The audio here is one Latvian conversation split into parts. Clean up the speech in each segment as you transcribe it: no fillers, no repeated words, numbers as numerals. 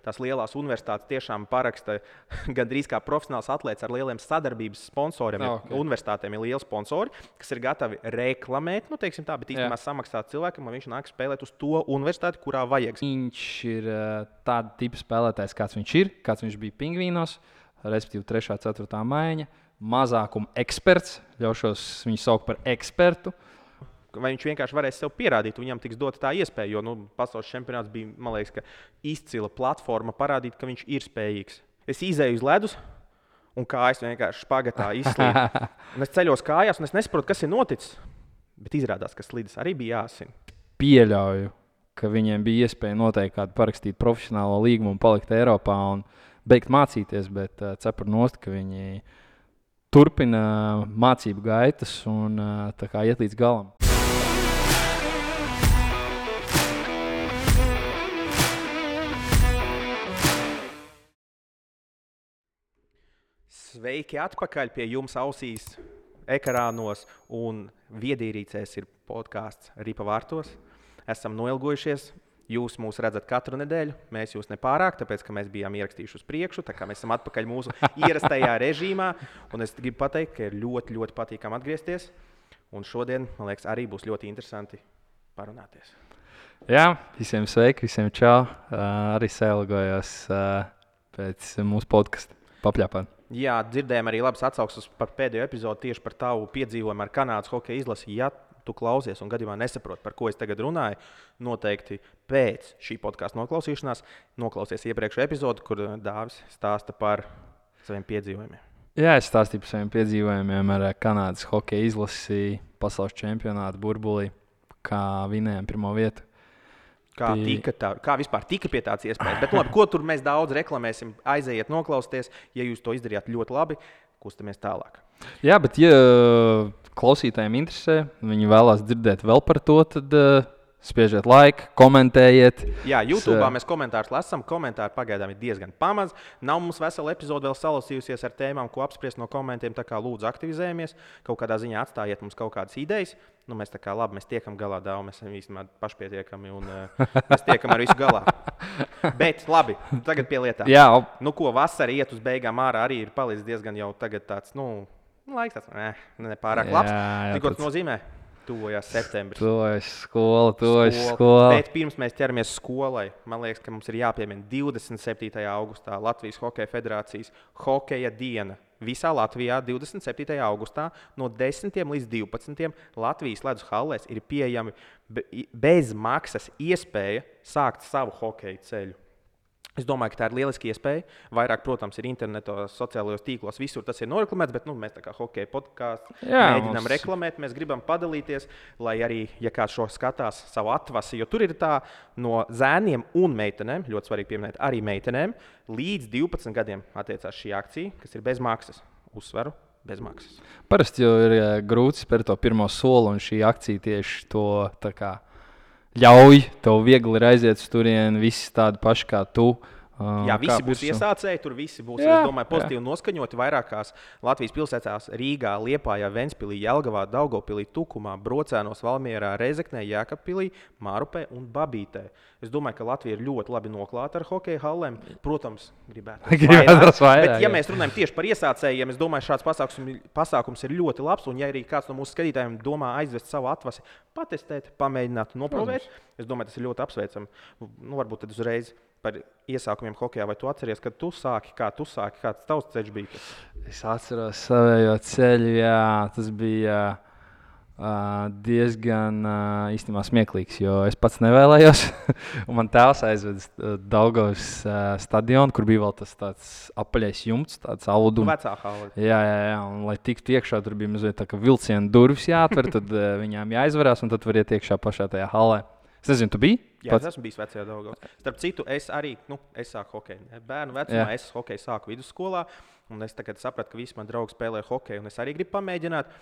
tās lielās universitātes tiešām paraksta gandrīz kā profesionāls atlēts ar lieliem sadarbības sponsoriem. Universitātēm ir lieli sponsori, kas ir gatavi reklamēt, nu, teiksim tā, bet īstenībā samaksāt cilvēkam, lai viņš nāk spēlēt uz to universitāti, kurā vajag. Viņš ir tāda tipa spēlētājs, kāds viņš bija Pingvīnos, respektīvi 3. 4. maiņa, mazākuma eksperts, ļaušos viņu saukt par ekspertu. Vai viņš vienkārši varēs sev pierādīt, viņam tiks dota tā iespēja, jo pasaules čempionāts bija, man liekas, ka izcila platforma parādīt, ka viņš ir spējīgs. Es izēju uz ledus, un kājas vienkārši špagatā izslīd. Un es ceļos kājās, un es nesaprotu, kas ir noticis, bet izrādās, ka slīdes arī bija jāsina. Pieļauju, ka viņiem bija iespēja noteikti kādu parakstīt profesionālo līgumu un palikt Eiropā un beigt mācīties, bet cepur nost, ka viņi turpina mācību gaitas un tā kā iet līdz galam. Sveiki atpakaļ pie jums ausīs, ekrānos un viedierīcēs ir podcasts Ripa vārtos. Esam noilgojušies. Jūs mūs redzat katru nedēļu. Mēs jūs nepārāk, tāpēc, ka mēs bijām ierakstījuši uz priekšu, tā kā mēs esam atpakaļ mūsu ierastajā režīmā. Un es gribu pateikt, ka ir ļoti, ļoti patīkami atgriezties. Un šodien, man liekas, arī būs ļoti interesanti parunāties. Jā, visiem sveiki, visiem čau. Arī sailgojos pēc mūsu podkasta papļāpāt. Jā, dzirdējām arī labas atsauksmes par pēdējo epizodi tieši par tavu piedzīvojumu ar Kanādas hokeja izlasi. Ja tu klausies un gadījumā nesaproti, par ko es tagad runāju, noteikti pēc šī podkasta noklausīšanās noklausies iepriekšējo epizodi, kur Dāvis stāsta par saviem piedzīvojumiem. Jā, es stāstīju par saviem piedzīvojumiem ar Kanādas hokeja izlasi pasaules čempionātu burbulī, kā vinējām pirmo vietu. Kā vispār tika pie tādas iespējas. Bet labi, ko tur mēs daudz reklamēsim, aizejiet noklausties. Ja jūs to izdarījāt ļoti labi, kustamies tālāk. Jā, bet ja klausītājiem interesē, viņi vēlās dzirdēt vēl par to, tad spiežiet laiku, komentējiet. Jā, YouTube'ā mēs komentārus lasām. Komentāri pagaidām ir diezgan pamaz. Nav mums vesela epizode vēl salasījusies ar tēmām, ko apspriest no komentiem. Tā kā lūdzu aktivizējamies. Kaut kādā ziņā atstājiet mums kaut kādas idejas. Nu, mēs tā kā labi, mēs tiekam galā daudz. Mēs esam īstenībā pašpietiekami un mēs tiekam ar visu galā. Bet labi, tagad pie lietām. Jā. Nu ko, vasara iet uz beigām ārā arī ir palicis diezgan jau tagad tāds, laiks tāds, nepārāk labs. Ko tas nozīmē? Tuvojās septembris. Tuvojas skola. Bet pirms mēs ķeramies skolai, man liekas, ka mums ir jāpiemina 27. augustā Latvijas Hokeja Federācijas hokeja diena. Visā Latvijā 27. augustā no 10 līdz 12 Latvijas ledus hallēs ir pieejami bez maksas iespēja sākt savu hokeja ceļu. Es domāju, ka tā ir lieliska iespēja. Vairāk, protams, ir internetā, sociālajos tīklos, visur tas ir noreklamēts, bet mēs tā kā hokeja podkāstu mēģinām reklamēt. Mēs gribam padalīties, lai arī, ja kāds šo skatās savu atvasi, jo tur ir tā no zēniem un meitenēm, ļoti svarīgi pieminēt arī meitenēm, līdz 12 gadiem attiecās šī akcija, kas ir bez maksas. Uzsveru, bez maksas. Parasti jau ir grūti spērt to pirmo soli, un šī akcija tieši to tā kā ļauj, tev viegli ir aiziet uz turieni, visi tādi paši kā tu. Jā, visi būs iesācēji, tur visi būs, es domāju, pozitīvi noskaņoti vairākās Latvijas pilsētās - Rīgā, Liepājā, Ventspilī, Jelgavā, Daugavpilī, Tukumā, Brocēnos, Valmierā, Rezeknē, Jēkabpilī, Mārupē un Babītē. Es domāju, ka Latvija ir ļoti labi noklāta ar hokeja hallēm. Protams, gribētu vairāk. Bet, ja mēs runājam tieši par iesācējiem, es domāju, šāds pasākums ir ļoti labs. Un, ja arī kāds no mūsu skatītājiem domā aizvest savu atvasi, patestēt, pamēģināt, noprovēt, es domāju, tas ir ļoti apsveicami. Varbūt tad uzreiz par iesākumiem hokejā, vai tu atceries, kad tu sāki, kāds tavs ceļš bija? Es atceros savējo ceļu, jā, tas bija diezgan īstenībā smieklīgs, jo es pats nevēlējos. Un man tēvs aizveda Daugavas stadionu, kur bija vēl tas tāds apaļais jumts, tāds audums. Vecā hale. Jā, un lai tiktu iekšā, tur bija mazliet tā kā vilciena durvis jāatver, tad viņām jāizvarās, un tad var iet iekšā pašā tajā halē. Es nezinu, tu biji? Jā, es esmu bijis vecajā Daugavā. Starp citu, es arī, es sāku hokeju. Bērnu vecumā es hokeju sāku vidusskolā, un es tagad sapratu, ka visi mani draugi spēlē hokeju, un es arī gribu pamēģināt.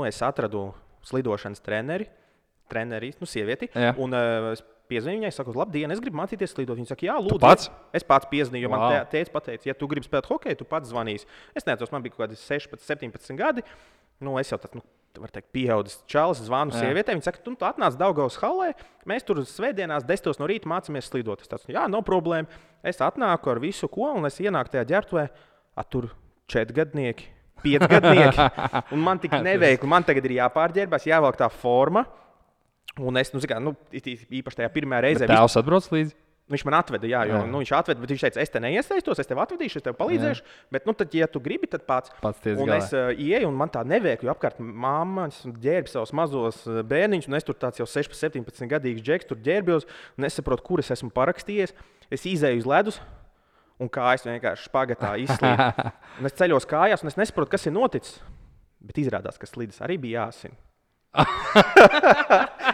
Es atradu slidošanas treneri, sievieti, un es piezvanīju viņai, saku, labdien, es gribu mācīties slidot. Viņa saka, jā, lūdzu. Es pats piezvanīju, jo man tēvs pateica, ja tu gribi spēlēt hokeju, tu pats zvanīsi. Es neatceros, man bija kaut kādi 16, 17 gadi. Es jau tāds, var teikt, pieaudzis čalis, zvanu sievietei. Viņa saka, tu atnāc Daugavas halē, mēs tur svētdienās 10 no rīta mācāmies slidot. Es tāds, jā, nav problēma. Es atnāku ar visu ko, un es ienāku tajā ģērbtuvē, tur 4 gadnieki, 5 gadnieki. Un man tik neveikli, man tagad ir jāpārģērbās, jāvelk tā forma. Un es, īpaši tajā pirmajā reizē. Tēvs atbrauc līdzi? Viņš man atveda, viņš atveda, bet viņš teica, es te neiesaistos, es tev atvedīšu, es tev palīdzēšu. Bet, tad, ja tu gribi, tad pats un galā. Es ieeju, un man tā neveikli, jo apkārt mammas ģērb savus mazos bērniņus, un es tur tāds jau 16, 17 gadīgs džeks, tur ģērbjos, un nesaprotu, kur es esmu parakstījies. Es izēju uz ledus, un kājas vienkārši špagatā izslīd. Un es ceļos kājās, un es nesaprotu, kas ir noticis. Bet izrādās, ka slīdes arī bija jāsina.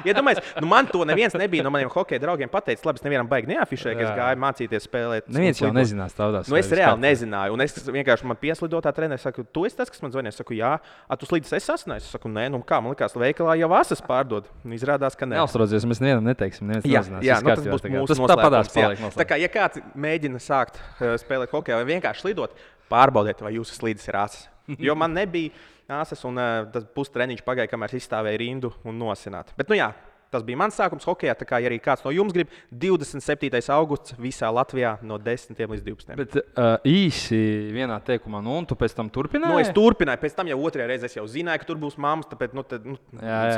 Iedomājies, man to neviens nebija no maniem hokeja draugiem pateicis. Labi, es nevienam baigi neafišēju, ka es gāju mācīties spēlēt. Neviens jau nezinās tādās. Es reāli nezināju. Un es vienkārši man pieslidotā treneri saku, tu esi tas, kas man zvanīja. Es saku, jā, tu slīdes esi sasniedzis. Es saku, nē, kā man likās, veikalā jau asas pārdod. Izrādās, ka nē. Neuztraucies, mēs nevienam neteiksim. Jā, tas būs mūsu noslēpums. Tā kā, ja kāds mēģina sākt spēlēt hokeju vai vienkārši slidot, pārbaudiet, vai jūsu slīdes ir asas. Jo man nebija asas, un tas pustreniņš pagāja, kamēr es izstāvēju rindu un nosināt. Bet, tas bija mans sākums hokejā. Tā kā ja arī kāds no jums grib, 27. augusts visā Latvijā no 10 līdz 12. Bet īsi vienā teikumā, un tu pēc tam turpināji? Es turpināju, pēc tam jau otrajā reizē es jau zināju, ka tur būs mammas, tāpēc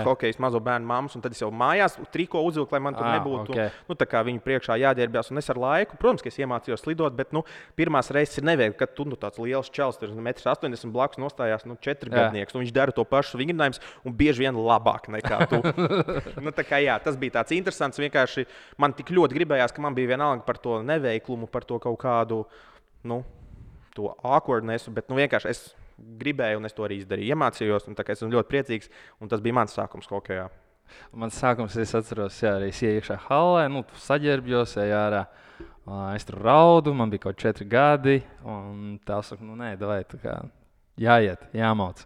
hokejs mazo bērnu mammas, un tad es jau mājās triko uzvilku, lai man tur nebūtu. Okay. Tā kā viņu priekšā jāģērbjās, un es ar laiku, protams, ka es iemācījos slidot, bet pirmās reizes ir neveikli, kad tu tāds liels čels, tur 1,80 m blakus nostājās 4 gadnieks, un viņš dara to pašu vingrinājumus, un bieži vien labāk nekā tu. Tas bija tāds interesants. Vienkārši man tik ļoti gribējās, ka man bija vienalga par to neveiklumu, par to kaut kādu to awkwardnessu, bet vienkārši es gribēju, un es to arī izdarīju. Iemācījos, un es esmu ļoti priecīgs, un tas bija mans sākums hokejā. Mans sākums, es atceros, arī es ienāku iekšā halē, saģērbjos, ārā. Es tur raudu, man bija kaut 4 gadi, un tā saka, nē, davai, tā kā jāiet, jāmauc.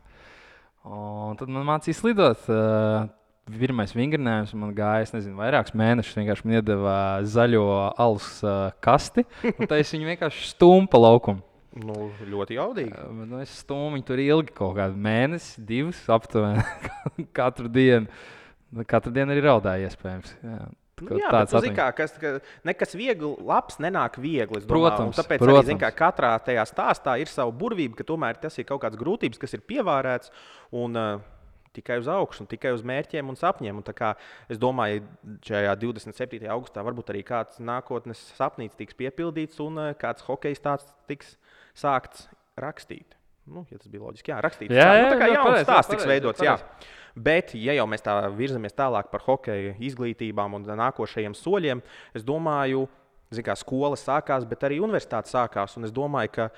Un tad man mācīja slidot. Pirmais vingrinājums man gāja, vairākus mēnešus. Vienkārši man iedeva zaļo alus kasti, un tā es viņu vienkārši stūmu pa laukumu. Ļoti jaudīgi. Es stūmu viņu tur ilgi, kaut kādu mēnesi, 2 aptuveni, katru dienu. Katru dienu arī raudāja iespējams. Bet tu zini, ka nekas viegli, labs nenāk viegli. Protams. Tāpēc arī, katrā tajā stāstā ir sava burvība, ka tomēr tas ir kaut kāds grūtības, kas ir pievērēts. Tikai uz augšu, tikai uz mērķiem un sapņiem. Es domāju, ka šajā 27. augustā varbūt arī kāds nākotnes sapnis tiks piepildīts un kāds hokejs tāds tiks sākts rakstīt. Ja tas bija loģiski, rakstīt. Tā kā jauns stāsts tiks veidots. Bet, ja jau mēs tā virzamies tālāk par hokeja izglītībām un nākošajiem soļiem, es domāju, ka skola sākās, bet arī universitāte sākās. Un es domāju, ka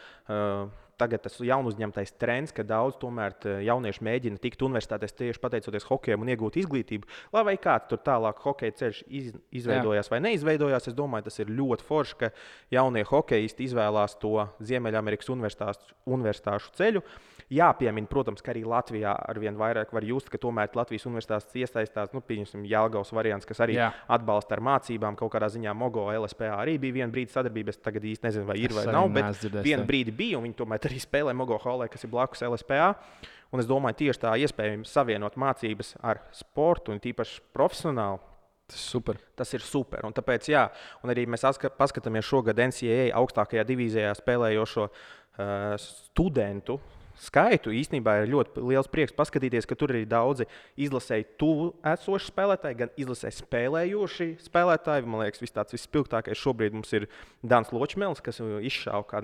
tagad tas jaunu uzņemtais trends, ka daudz tomēr jaunieši mēģina tikt universitātēs tieši pateicoties hokejam un iegūt izglītību. Lai kāds tur tālāk hokeja ceļš izveidojās vai neizveidojās, es domāju, tas ir ļoti forši, ka jaunie hokejisti izvēlās to Ziemeļamerikas universitāšu ceļu. Jāpiemina, protams, ka arī Latvijā arvien vairāk var just, ka tomēr Latvijas universitātes iesaistās, pieņemsim, Jelgavas variants, kas arī atbalsta ar mācībām. Kaut kādā ziņā Mogo LSPA arī bija viena brīdi sadarbība. Es tagad īsti nezinu, vai ir vai nav, bet viena brīdi bija, un viņi tomēr arī spēlē Mogo Hallē, kas ir blakus LSPA. Un es domāju, tieši tā iespējams savienot mācības ar sportu un tīpaši profesionāli. Tas ir super. Un tāpēc, un arī mēs paskatāmies šogad NCAA augstākajā divīzijā spēlējošo studentu skaitu. Īstenībā ir ļoti liels prieks paskatīties, ka tur ir daudzi izlasēji tuvu esoši spēlētāji, gan izlasēji spēlējoši spēlētāji. Man liekas, vispilgtākais šobrīd mums ir Dans Ločmēls, kas izšāva kā,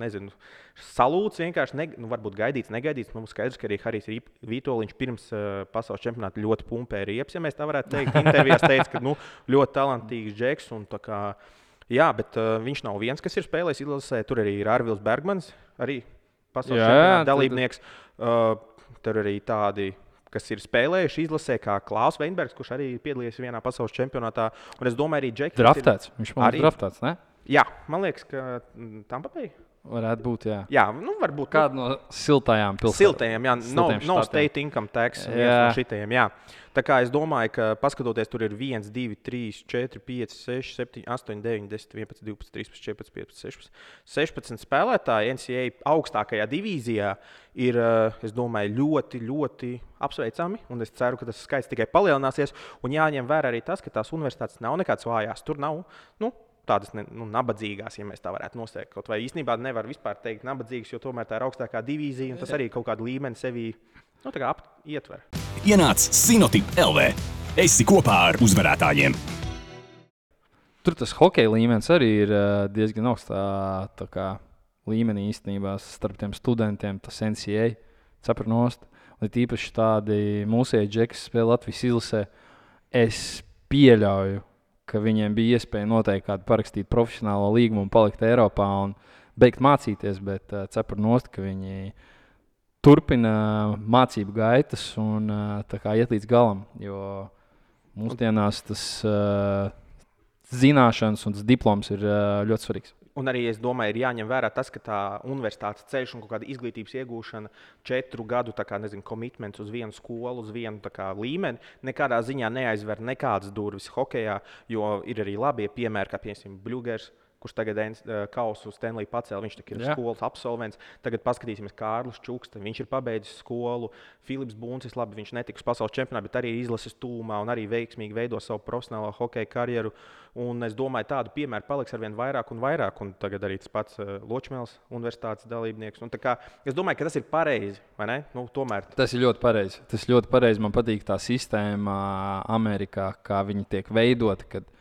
salūts vienkārši, varbūt gaidīts, negaidīts. Mums skaidrs, ka arī Harijs Vitoļņš pirms pasaules čempionāta ļoti pumpēja riepas, ja mēs tā varētu teikt. Intervijās teica, ka ļoti talantīgs džeks. Bet viņš nav viens, kas ir spēlējis izlasē. Tur arī ir Arvils Bergmans, arī pasaules čempionāta dalībnieks. Tur arī tādi, kas ir spēlējuši izlasē, kā Klaus Veinbergs, kurš arī piedalījies vienā pasaules čempionātā. Un es domāju, arī Džeks. Draftēts. Viņš man ir draftēts, ne? Jā, man liekas, ka Tampa Bay. Varētu būt, jā. Jā, nu varbūt. Kāda no siltajām pilsētām? Siltajiem, jā. Siltajiem No štatiem. state income tax, viens no šitajiem, jā. Tā kā es domāju, ka paskatoties, tur ir 1, 2, 3, 4, 5, 6, 7, 8, 9, 10, 11, 12, 13, 14, 15, 16 spēlētāji NCAA augstākajā divīzijā ir, es domāju, ļoti, ļoti apsveicami. Un es ceru, ka tas skaits tikai palielināsies. Un jāņem vērā arī tas, ka tās universitātes nav nekādas vājās. Tur nav, tādas nabadzīgās, ja mēs tā varētu nosaukt. Kaut vai īstenībā nevar vispār teikt nabadzīgas, jo tomēr tā ir augstākā divīzija, un tas arī kaut kādu līmeni sevī ietver. Ienāc Sinotip LV. Esi kopā ar uzvarētājiem. Tur tas hokeja līmenis arī ir diezgan augstā līmenī īstenībā starp tiem studentiem, tas NCAA cepurnost. Un tīpaši tādi mūsēji džeki, kas spēlē Latvijas izlasē, es pieļauju, ka viņiem bija iespēja noteikti kādu parakstīt profesionālo līgumu un palikt Eiropā un beigt mācīties, bet cepurnost, ka viņi turpina mācību gaitas un iet līdz galam, jo mūsdienās tas zināšanas un tas diploms ir ļoti svarīgs. Un arī es domāju, ir jāņem vērā tas, ka tā universitātes ceļš un kāda izglītības iegūšana 4 gadu komitments uz vienu skolu, uz vienu līmeni, nekādā ziņā neaizver nekādas durvis hokejā, jo ir arī labie piemēri, kā piemēram Bļūgers, kurš tagad kausu Stanley pacēla. Viņš ir skolas absolvents. Tagad paskatīsimies Kārlis Čukste. Viņš ir pabeidzis skolu. Filips Buncis, labi, viņš netika uz pasaules čempionāta, bet arī izlases tūmā un arī veiksmīgi veido savu profesionālo hokeja karjeru. Un es domāju, tādu piemēru paliks arvien vairāk un vairāk. Un tagad arī tas pats Ločmēls universitātes dalībnieks. Un es domāju, ka tas ir pareizi, vai ne? Tomēr. Tas ir ļoti pareizi. Tas ļoti pareizi. Man patīk tā sistēma Amerikā, kā viņi tiek veidoti, kad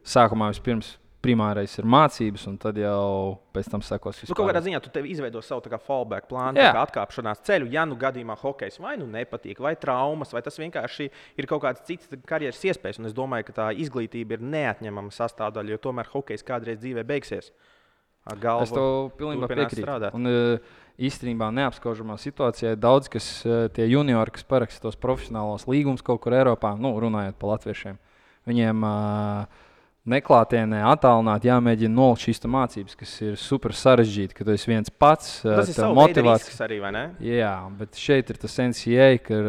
sākumā vispirms primārais ir mācības, un tad jau pēc tam sekos vispār. Kaut kādā ziņā tu izveido savu fallback plānu, atkāpšanās ceļu. Ja gadījumā hokejs vai nepatīk, vai traumas, vai tas vienkārši ir kaut kāds cits karjeras iespējas. Un es domāju, ka tā izglītība ir neatņemama sastāvdaļa, jo tomēr hokejs kādreiz dzīvē beigsies. Es tev pilnībā piekrītu. Un īstenībā neapskaužamā situācijā ir daudz, kas tie juniori, kas paraksta tos profesionālos līgumus kaut kur Eiropā, runājot par latviešiem, viņiem neklātienē, attālināti jāmēģina nolikt šīs mācības, kas ir super sarežģīti, ka tu esi viens pats. Tas ir savs motivācijas arī, vai ne? Jā, bet šeit ir tas NCAA, ka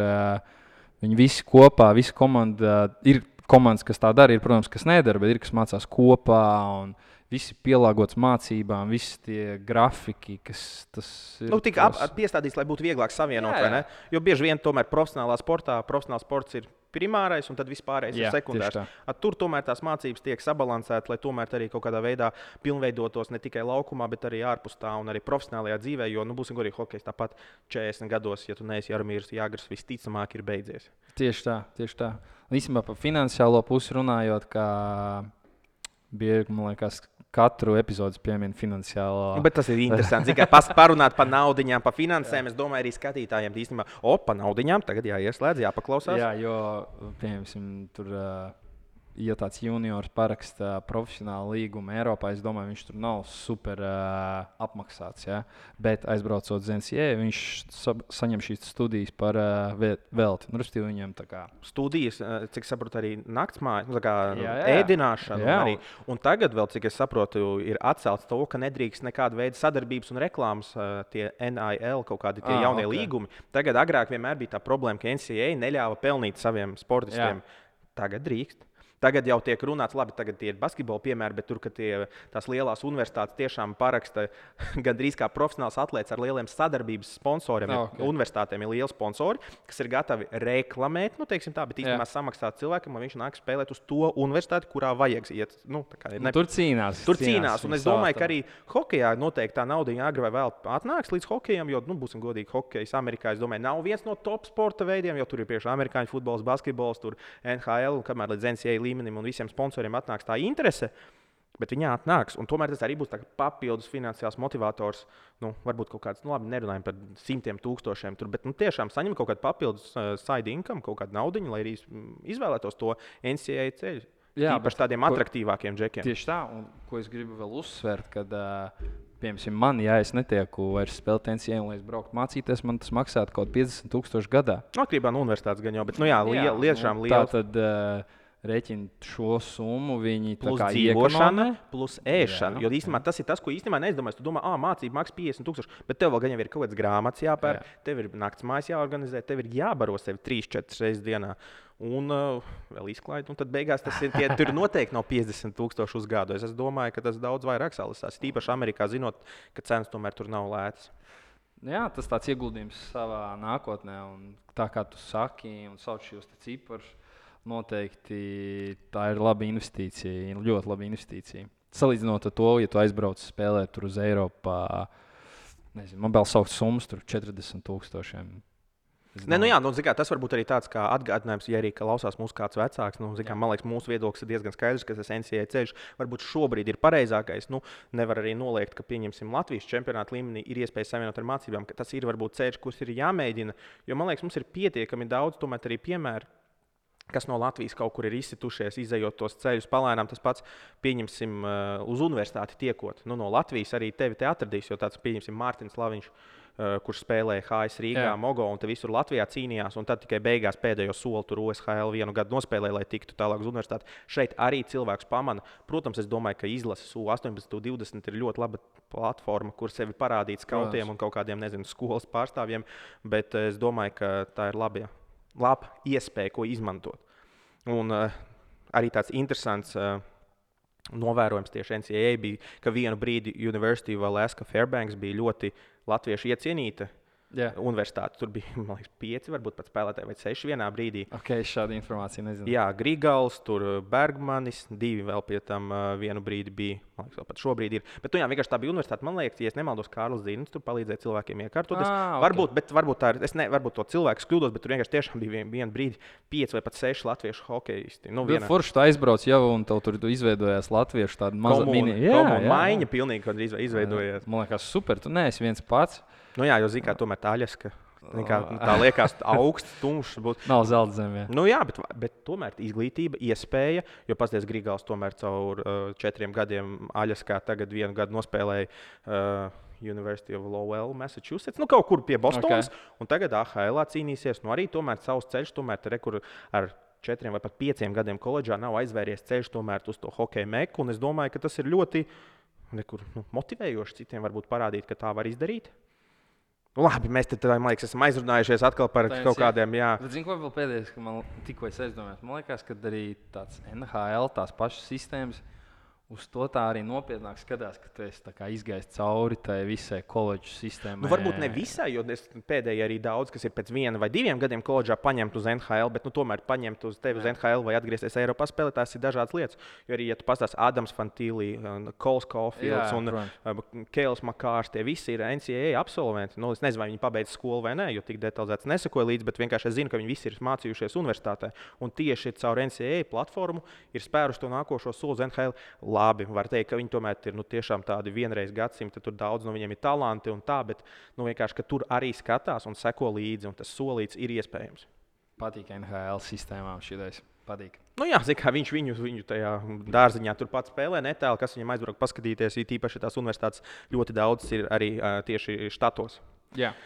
viņi visi kopā, visa komanda, ir komandas, kas tā dara, ir, protams, kas nedara, bet ir, kas mācās kopā un visi pielāgots mācībām, visi tie grafiki, kas tas ir. Tik piestādīts, lai būtu vieglāk savienot, vai ne? Jo bieži vien tomēr profesionālais sports ir primārais un tad vispārējais ir sekundārs. Tur tomēr tās mācības tiek sabalansētas, lai tomēr arī kaut kādā veidā pilnveidotos ne tikai laukumā, bet arī ārpus tā un arī profesionālajā dzīvē, jo, būsim godīgi, hokejs tāpat 40 gados, ja tu neesi Jaromīrs Jāgrs, visticamāk ir beidzies. Tieši tā. Īstenībā par finansiālo pusi runājot, kā bieži, man liekas, katru epizodi piemin finansiālo. Bet tas ir interesanti. Tikai parunāt par naudiņām, par finansēm. Es domāju, arī skatītājiem īstenībā, par naudiņām tagad jāieslēdz, jāpaklausās. Jā, jo, piemēram, tur, ja tāds juniors paraksta profesionālu līgumu Eiropā, es domāju, viņš tur nav super apmaksāts. Ja? Bet aizbraucot uz NCAA, viņš saņem šīs studijas par velti. Respektīvi, viņam tā kā studijas, cik saprotu, arī naktsmājas, ēdināšana. Arī. Un tagad vēl, cik es saprotu, ir atcelts to, ka nedrīkst nekāda veida sadarbības un reklāmas, tie NIL, kaut kādi tie jaunie līgumi. Tagad agrāk vienmēr bija tā problēma, ka NCAA neļāva pelnīt saviem sportistiem. Tagad drīkst. Tagad jau tiek runāts, labi, tagad tie ir basketbola piemēri, bet tur, ka tās lielās universitātes tiešām paraksta gandrīz kā profesionāls atlēts ar lieliem sadarbības sponsoriem. Universitātēm ir lieli sponsori, kas ir gatavi reklamēt, teiksim tā, bet īstenībā samaksāt cilvēkam, lai viņš nāk spēlēt uz to universitāti, kurā vajag iet. Tur cīnās. Un es domāju, ka arī hokejā noteikti tā nauda agri vai vēl atnāks līdz hokejam, jo, būsim godīgi, hokejs Amerikā, es domāju, nav viens no top sporta veidiem, jo tur ir priekšā amerikāņu futbols, basketbols, tur NHL, un kamēr līdz NCAA līmenim un visiem sponsoriem atnāks tā interese, bet viņa atnāks. Un tomēr tas arī būs papildus finansiāls motivators. Varbūt kaut kāds, labi, nerunājam par 100,000 tur, bet tiešām saņem kaut kādu papildus side income, kaut kādu naudiņu, lai arī izvēlētos to NCAA ceļu. Īpaši tādiem atraktīvākiem džekiem. Tieši tā, un ko es gribu vēl uzsvērt, kad, piemēram, man, ja es netieku vairs spēlēt NCAA un lai es brauktu mācīties, man tas maksātu kaut 50,000 gadā. Atkarībā no universitātes gan jau, bet, lietiešām liels. Tātad, rēķina šo summu, viņi Plus tā kā dzīvošana, iekonomē. plus ēšana. Jo īstenībā tas ir tas, ko īstenībā neizdomājas. Tu domā, mācība maksā 50,000, bet tev vēl gan jau ir kaut kāds grāmatas jāpērk, tev ir nakts mājas jāorganizē, tev ir jābaro sevi 3-4 reizes dienā. Un vēl izklaide. Un tad beigās tas ir tur noteikti nav 50,000 uz gadu. Es domāju, ka tas daudz vairāk salasās. Tīpaši Amerikā, zinot, ka cenas tomēr tur nav lētas. Jā, tas tāds ieguldījums savā nākotnē. Un tā kā tu saki un sauc šos ciparus, noteikti tā ir laba investīcija. Ļoti laba investīcija. Salīdzinot ar to, ja tu aizbrauc spēlēt tur uz Eiropu, nezinu, man vēl saukt summas tur 40,000. Nē, tas varbūt arī tāds kā atgādinājums, ja arī klausās mūsu kāds vecāks. Man liekas, mūsu viedoklis ir diezgan skaidrs, ka tas NCAA ceļš varbūt šobrīd ir pareizākais. Nevar arī noliegt, ka pieņemsim Latvijas čempionāta līmenī ir iespēja savienot ar mācībām, ka tas ir varbūt ceļš, kurš ir jāmēģina. Jo man liekas, mums ir pietiekami daudz tomēr arī piemēru, kas no Latvijas kaut kur ir izsitušies, izejot tos ceļus palēnām. Tas pats, pieņemsim, uz universitāti tiekot. No Latvijas arī tevi te atradīs, jo tāds, pieņemsim, Mārtiņš Laviņš, kurš spēlēja HS Rīgā, Mogo un te visur Latvijā cīnījās. Un tad tikai beigās pēdējo soli tur OSHL 1 gadu nospēlēja, lai tiktu tālāk uz universitāti. Šeit arī cilvēks pamana. Protams, es domāju, ka izlases U18, U20 ir ļoti laba platforma, kur sevi parādīt skautiem un kaut kādiem, nezinu, skolas pārstāvjiem. Bet es domāju, ka tā ir laba iespēja, ko izmantot. Un arī tāds interesants novērojums tieši NCAA bija, ka vienu brīdi University of Alaska Fairbanks bija ļoti latviešu iecienīta universitāte. Tur bija, man liekas, 5 varbūt pat spēlētāji vai 6 vienā brīdī. Ok, šādu informāciju nezinu. Jā, Grigals, tur Bergmanis, 2 vēl pie tam vienu brīdi bija. Man liekas, vēl pat šobrīd ir. Bet vienkārši tā bija universitāte. Man liekas, ja es nemaldos, Kārlis Zīnis tur palīdzēja cilvēkiem iekārtoties. Okay. Varbūt tā ir, varbūt to cilvēku kļūdos, bet tur vienkārši tiešām bija vienu brīdi 5 vai pat 6 latviešu hokeisti. Forši tu aizbrauc jau un tev tur izveidojās latviešu tāda maza maiņa pilnīgi izveidojās. Man liekas, super, tu neesi viens pats. Jā, jo zini, kā tomēr tā Aļaska. Tā liekas augsts, tumšs. Nav zelta zemē. Bet tomēr izglītība, iespēja, jo pasties Grigals tomēr caur 4 gadiem Aļaskā tagad 1 gadu nospēlēja University of Lowell, Massachusetts, kaut kur pie Bostonas. Okay. Un tagad AHL cīnīsies. Arī tomēr savs ceļš, kur ar 4 vai pat 5 gadiem koledžā nav aizvēries ceļš tomēr uz to hokeja meku. Un es domāju, ka tas ir ļoti motivējoši citiem varbūt parādīt, ka tā var izdarīt. Labi, mēs te, man liekas, esam aizrunājušies atkal par kaut kādiem. Zinu, ko vēl pēdējais, ka man tikko es aizdomājos. Man liekas, ka arī tāds NHL, tās pašas sistēmas, uz to tā arī nopietnāk skatās, ka tu esi izgājis cauri tai visai koledžas sistēmai. Varbūt ne visai, jo pēdējie arī daudz, kas ir pēc 1 vai 2 gadiem koledžā paņemt uz NHL, bet tomēr paņemt uz tevi uz NHL vai atgriezties Eiropā spēlēt, tās ir dažādas lietas. Jo arī, ja tu pastāsti Adams Fantīlī, Kols Caulfields un Keils Makārs, tie visi ir NCAA absolventi. Es nezinu, vai viņi pabeidz skolu vai nē, jo tik detalizēts nesekoju līdzi, bet vienkārši es zinu, ka viņi visi ir mācījušies universitātē. Un tieši caur NCAA platformu ir spēruši to nākošo soli uz NHL. Labi, var teikt, ka viņi tomēr ir tiešām tādi vienreiz gadsimti, tur daudz no viņiem ir talanti un tā, bet vienkārši, ka tur arī skatās un seko līdzi, un tas solīts ir iespējams. Patīk NHL sistēmām šitais. Patīk. Kā viņš viņu tajā dārziņā tur pats spēlē, netālu, kas viņam aizbraukt paskatīties, īpaši tās universitātes ļoti daudz ir arī tieši štatos. Jā.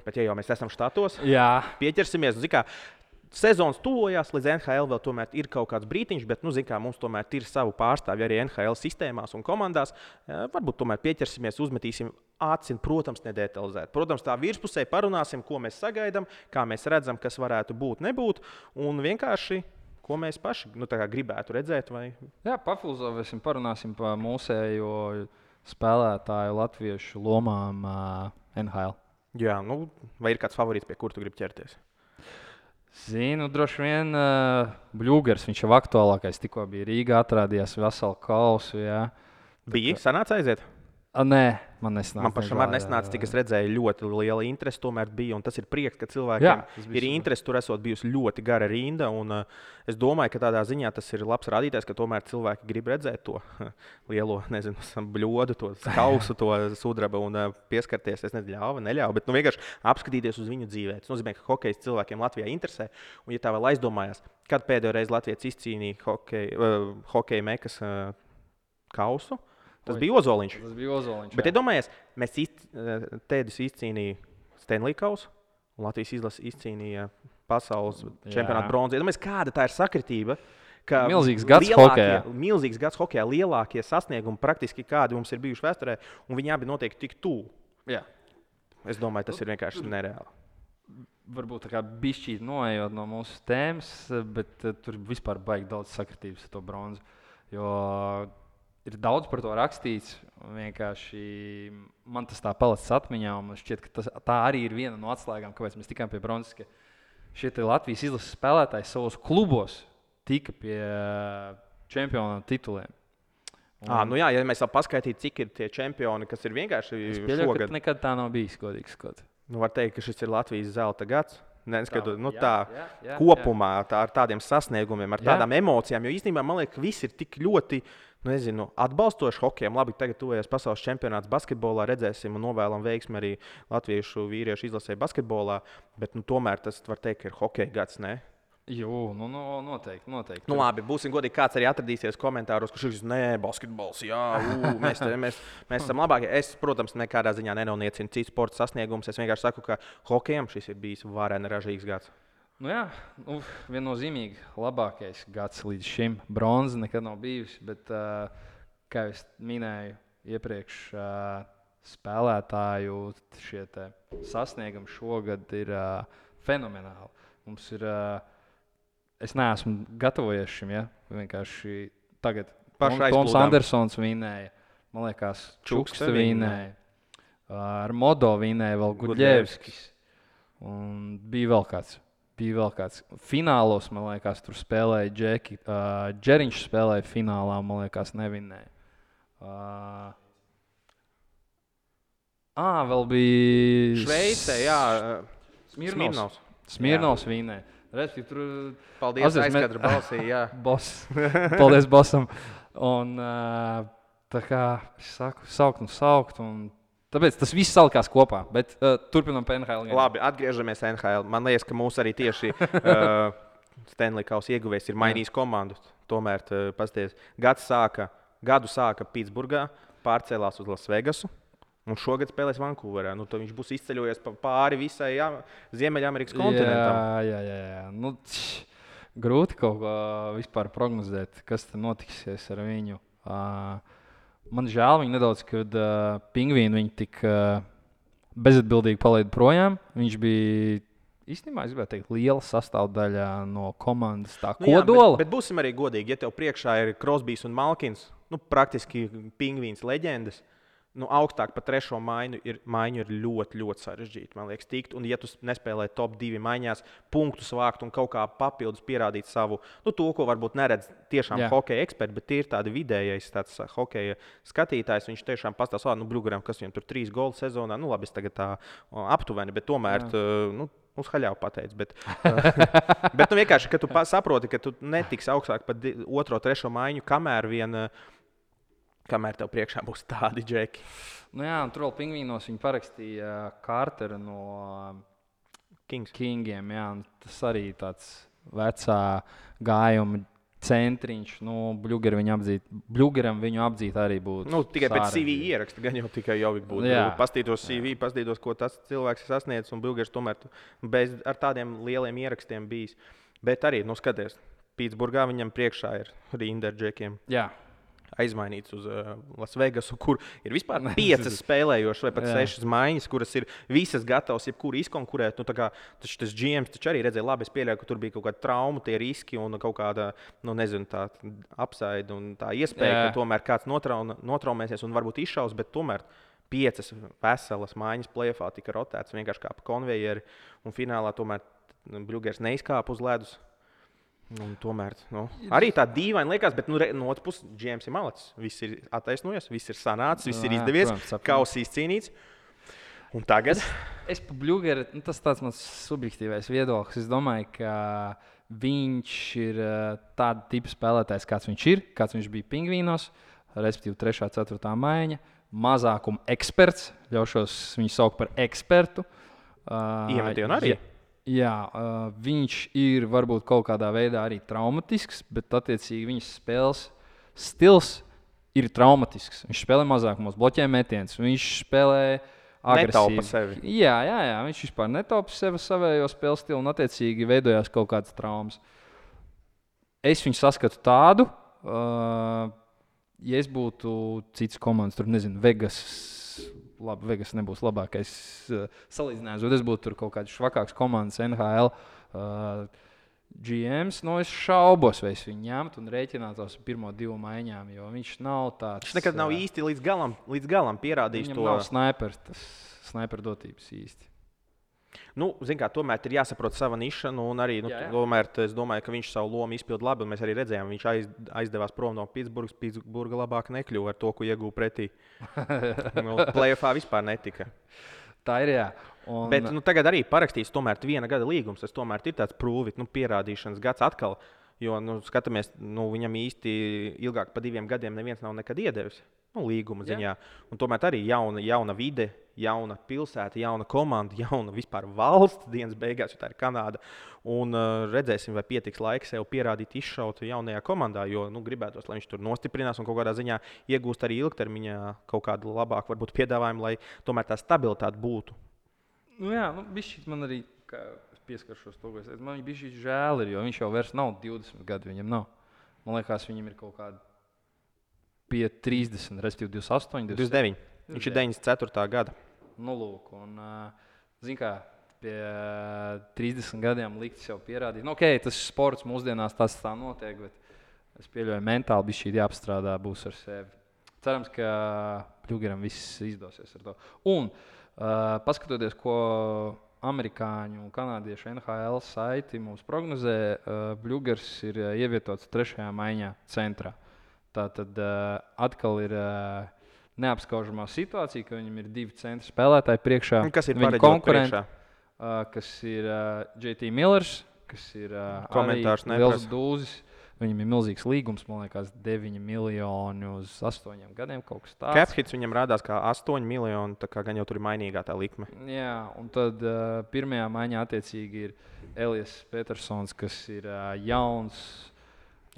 Bet ja jau mēs esam štatos, pieķersimies, sezonas tuvojās, līdz NHL vēl tomēr ir kaut kāds brītiņš, bet, mums tomēr ir savu pārstāvju arī NHL sistēmās un komandās. Varbūt tomēr pieķersimies, uzmetīsim aci, protams, nedetalizēt. Protams, tā virspusē parunāsim, ko mēs sagaidām, kā mēs redzam, kas varētu būt, nebūt, un vienkārši, ko mēs paši gribētu redzēt. Vai... Jā, pafilozofēsim, parunāsim par mūsējo spēlētāju latviešu lomām NHL. Jā, vai ir kāds favorīts, pie kura tu gribi ķerties? Zinu, droši vien Bļūgers, viņš jau aktuālākais, tikko bija Rīgā, atrādījās veselu kausu. Bija? Sanāca aiziet? Nē, man nesnāca. Man pašam arī nesnāca, cik es redzēju, ļoti liela interese tomēr bija. Un tas ir prieks, ka cilvēkiem ir interese. Tur esot bijusi ļoti gara rinda. Un, es domāju, ka tādā ziņā tas ir labs rādītājs, ka tomēr cilvēki grib redzēt to lielo, bļodu, to kausu, to sudraba un pieskarties. Es nezinu, neļauju, bet vienkārši apskatīties uz viņu dzīvē. Tas nozīmē, ka hokejs cilvēkiem Latvijā interesē. Un, ja tā vēl aizdomājās, kad pēdējo reizi Latvijas izcīnīja hokeja mekas kausu, tas bija Ozoliņš. Bet, iedomājies, mēs Tēdis izcīnīja Stanley kausu, un Latvijas izlase izcīnīja pasaules čempionāta bronzu. Iedomājies, kāda tā ir sakritība, ka Milzīgs gads hokejā. Milzīgs gads hokejā, lielākie sasniegumi praktiski kādi mums ir bijuši vēsturē, un viņi abi notiek tik tuvu. Jā. Es domāju, tas ir vienkārši nereāli. Varbūt tā kā bišķīt noejot no mūsu tēmas, bet tur vispār baigi daudz sakritības ar to bronzu. Jo ir daudz par to rakstīts. Vienkārši man tas tā palicis atmiņā, un man šķiet, ka tā arī ir viena no atslēgām, kāpēc mēs tikām pie bronzas, ka šie Latvijas izlases spēlētāji savos klubos tika pie čempionu tituliem. Nu jā, ja mēs vēl paskaitītu, cik ir tie čempioni, kas ir vienkārši šogad. Nekad tā nav bijis, godīgi sakot. Var teikt, ka šis ir Latvijas zelta gads. Neskatot, kopumā tā, ar tādiem sasniegumiem, ar tādām emocijām. Jo īstenībā man liekas, ka viss ir tik ļoti atbalstoši hokejam. Labi, tagad tuvojas pasaules čempionāts basketbolā, redzēsim un novēlam veiksmi arī latviešu vīriešu izlasē basketbolā. Bet tomēr tas var teikt, ka ir hokeja gads. Ne? Jū, noteikti. Labi, būsim godīgi, kāds arī atradīsies komentāros, ka šis ir basketbols. Jā, mēs esam labākie. Es, protams, nekādā ziņā nenoniecinu citu sporta sasniegumus. Es vienkārši saku, ka hokejam šis ir bijis vareni ražīgs gads. Viennozīmīgi labākais gads līdz šim. Bronza nekad nav bijusi, bet, kā jau minēju iepriekš, spēlētāju šie sasniegumi šogad ir fenomenāli. Mums ir, es neesmu gatavojies šim, ja? Vienkārši tagad Toms Andersons vinēja, man liekas, Čukste vinēja, ar Modo vinēja vēl Gudļevskis, un bija vēl kāds. Finālos, man liekas, tur spēlēja Džeki. Džeriņš spēlēja finālā, man liekas, nevinēja. Vēl bija Šveicē, jā. Smirnovs vinēja. Respektīvi, tur... Paldies, aizkadra balsī, jā. Paldies bossam. Un tā kā es saku, saukt un... Tāpēc tas viss salikās kopā, bet turpinām pie NHL. Labi, atgriežamies NHL. Man liekas, ka mūs arī tieši Stanley Kausa ieguvējs ir mainījis komandu. Tomēr, pasties, gadu sāka Pitsburgā, pārcēlās uz Lasvegasu un šogad spēlēs Vankūverā. Viņš būs izceļojies pāri visai Ziemeļamerikas kontinentam. Jā. Grūti kaut ko vispār prognozēt, kas te notiksies ar viņu. Man žēl viņa nedaudz, kad Pingvīnu viņa tik bezatbildīgi palaida projām. Viņš bija īstenībā, es gribētu teikt, liela sastāvdaļa no komandas tā kodola. Bet būsim arī godīgi, ja tev priekšā ir Crosbys un Malkins, praktiski Pingvīns leģendas, augstāk par trešo maiņu ir ļoti, ļoti sarežģīti, man liekas, tikt. Un ja tu nespēlē top 2 maiņās, punktus vākt un kaut kā papildus pierādīt savu, to, ko varbūt neredz tiešām hokeja eksperti, bet ir tādi vidējais tāds hokeja skatītājs, viņš tiešām pastāsta, Bļugaram, kas viņam tur 3 golu sezonā, labi, es tagad tā aptuveni, bet tomēr, uz haļāvu pateicu, bet vienkārši, ka tu saproti, ka tu netiksi augstāk par 2, 3 maiņu, kamēr tev priekšā būs tādi džeki. Tur vēl Pingvīnos viņi parakstīja Carteru no Kingiem. Tas arī tāds vecā gājuma centriņš. Bļugaram viņu apdzīt arī būtu. Tikai pēc CV ieraksta, gan jau tikai Jovik būtu. Pastītos CV, pastītos, ko tas cilvēks ir sasniedzis, un Bļugars tomēr ar tādiem lieliem ierakstiem bijis. Bet arī, skaties, Pitsburgā viņam priekšā ir rinda ar džekiem. Jā. Aizmainīts uz Lasvegasu, kur ir vispār 5 spēlējošas vai pat 6 maiņas, kuras ir visas gatavas jebkuru izkonkurēt. Tas GMs taču arī redzēja, labi, es pieļauju, ka tur bija kaut kāda trauma, tie riski un kaut kāda, tā apsaide un tā iespēja, ka tomēr kāds notraumēsies un varbūt izšaus, bet tomēr 5 veselas maiņas play-offā tika rotēts vienkārši kā pa konvejeri un finālā tomēr Bļugars neizkāpa uz ledus. Tomēr arī tā dīvaini liekas, bet no otras puses GMs ir malacis. Viss ir attaisnojies, viss ir sanācis, viss ir izdevies, kauss izcīnīts. Un tagad? Es pa Bļugaru, tas tāds mans subjektīvais viedoklis. Es domāju, ka viņš ir tāda tipa spēlētājs, kāds viņš bija Pingvīnos, respektīvi 3. 4. maiņa, mazākuma eksperts, ļaušos viņu saukt par ekspertu. Iemetienu arī? Jā, viņš ir varbūt kaut kādā veidā arī traumatisks, bet attiecīgi viņas spēles stils ir traumatisks. Viņš spēlē mazākumos, bloķē metienus, viņš spēlē agresīvi. Netaupa sevi. Jā, viņš vispār netaupa sevi savējo spēles stilu un attiecīgi veidojās kaut kādas traumas. Es viņu saskatu tādu, ja es būtu cits komandas, tur nezinu, Vegas. Labi, Vegas nebūs labākais salīdzinājums, bet es būtu tur kaut kāds švakāks komandas NHL GMs. Es šaubos, vai es viņu ņemtu un rēķinātos ar pirmo 2 maiņām, jo viņš nav tāds. Viņš nekad nav īsti līdz galam pierādījis to. Viņam nav snipers, tas sniper dotības īsti. Tomēr ir jāsaprot sava niša, un arī tomēr es domāju, ka viņš savu lomu izpilda labi. Mēs arī redzējām, viņš aizdevās prom no Pitsburgas. Pitsburga labāk nekļuva ar to, ko ieguva pretī. Playoffā vispār netika. Tā ir, jā. Bet tagad arī parakstīs tomēr 1 gada līgums. Tas tomēr ir tāds prūvit, pierādīšanas gads atkal. Jo, skatāmies, viņam īsti ilgāk par 2 gadiem neviens nav nekad iedevis. Līguma ziņā. Un tomēr arī jauna vide, jauna pilsēta, jauna komanda, jauna vispār valsts dienas beigās, jo tā ir Kanāda. Un redzēsim, vai pietiks laika sev pierādīt, izšaut jaunajā komandā, jo gribētos, lai viņš tur nostiprinās un kaut kādā ziņā iegūst arī ilgtermiņā kaut kādu labāku varbūt piedāvājumu, lai tomēr tā stabilitāte būtu. Bišķīt man arī, kā es pieskaršos to, ko es teicu, man bišķīt žēl ir, jo viņš jau vairs nav 20 gadu, viņam nav. Man liekas, viņam ir kaut kāda pie 30, respektīvi 28, 29. Viņš ir 94. gada. Lūk, un, kā, pie 30 gadiem likt sev pierādīt. Tas sports mūsdienās tas tā notiek, bet es pieļauju, mentāli bišķīt jāapstrādā būs ar sevi. Cerams, ka Bļugeram viss izdosies ar to. Un, paskatoties, ko amerikāņu un kanādiešu NHL saiti mums prognozē, Bļugers ir ievietots 3. maiņā centrā. Tā tad atkal ir neapskaužamā situācija, ka viņam ir 2 centra spēlētāji priekšā. Kas ir viņa konkurenti, kas ir JT Millers, kas ir komentārs liels dūzis. Viņam ir milzīgs līgums, man liekas, 9 miljoni uz 8 gadiem, kaut kas tāds. Caphits viņam rādās kā 8 miljoni, tā kā gan jau tur ir mainīgā tā likme. Jā, un tad pirmajā maiņā attiecīgi ir Elijas Petersons, kas ir jauns.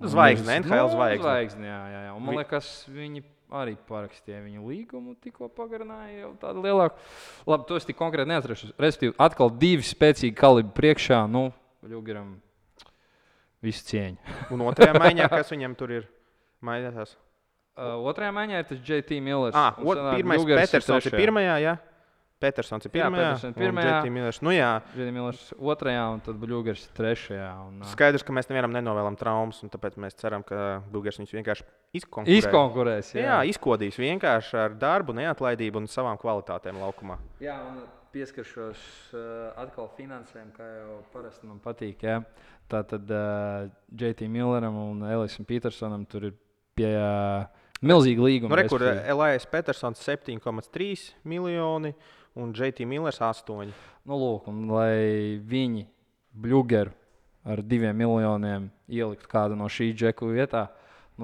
Zvaigzne, NHL zvaigzne. Jā. Un man liekas, viņi arī parakstīja viņu līgumu, tikko pagarināja jau tādu lielāku. Labi, to es tik konkrēti neatrašu. Respektīvi, atkal 2 spēcīgi kalibri priekšā, Bļugeram visu cieņu. Un 2. maiņā, kas viņam tur ir mainītās? 2. maiņā ir tas JT Millers. Pirmais Petersons ir 1. jā? Petersons ir 1. un JT Millers. JT Millers 2. un tad Bļugers 3. Skaidrs, ka mēs nevienam nenovēlam traumas, un tāpēc mēs ceram, ka Bļugers viņus vienkārši izkonkurēs. Jā, izkodīs vienkārši ar darbu, neatlaidību un savām kvalitātēm laukumā. Jā, un pieskaršos atkal finansēm, kā jau parasti man patīk. Jā. Tātad JT Milleram un Elijam Petersonam tur ir pie milzīga līguma. Kur Elijas Petersons 7,3 miljoni un JT Millers 8. Lūk, un lai viņi Bļugeru ar 2 miljoniem ieliktu kādu no šī džeku vietā,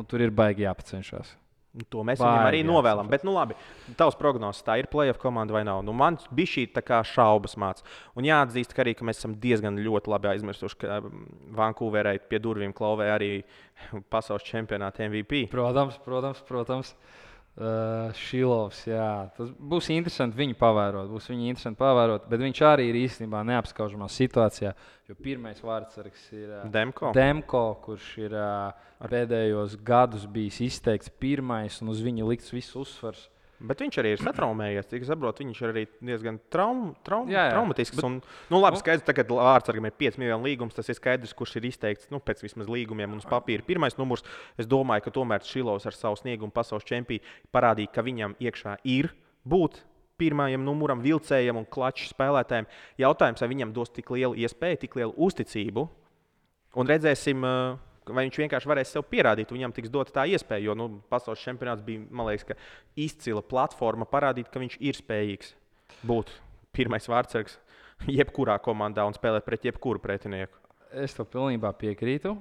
tur ir baigi jāpacenšas. To mēs viņam arī novēlam. Bet, labi, tavs prognozes, tā ir playoff komanda vai nav? Man bija šī tā kā šaubas māca. Un jāatzīst, ka mēs esam diezgan ļoti labi aizmirsuši, ka Vankūverai pie durvīm klauvē arī pasaules čempionāta MVP. Protams. Šilovs, jā. Tas būs interesanti viņu pavērot. Bet viņš arī ir īstenībā neapskaužamā situācijā, jo pirmais vārdsargs ir Demko, kurš ir pēdējos gadus bijis izteikts pirmais un uz viņu likts viss uzsvars. Bet viņš arī ir satraumējies. Cik es saprotu, viņš ir arī diezgan traumatisks. Labi, skaidrs, tagad vārdsargam ir 5 miljonu līgums. Tas ir skaidrs, kurš ir izteikts pēc vismaz līgumiem un uz papīra. Pirmais numurs. Es domāju, ka tomēr Šilovs ar savu sniegumu pasaules čempionu parādīja, ka viņam iekšā ir būt pirmajam numuram, vilcējam un klaču spēlētājiem. Jautājums, vai viņam dos tik lielu iespēju, tik lielu uzticību. Un redzēsim, vai viņš vienkārši varēs sev pierādīt, viņam tiks dota tā iespēja. Jo pasaules čempionāts bija, man liekas, izcila platforma parādīt, ka viņš ir spējīgs būt pirmais vārdsargs jebkurā komandā un spēlēt pret jebkuru pretinieku. Es to pilnībā piekrītu.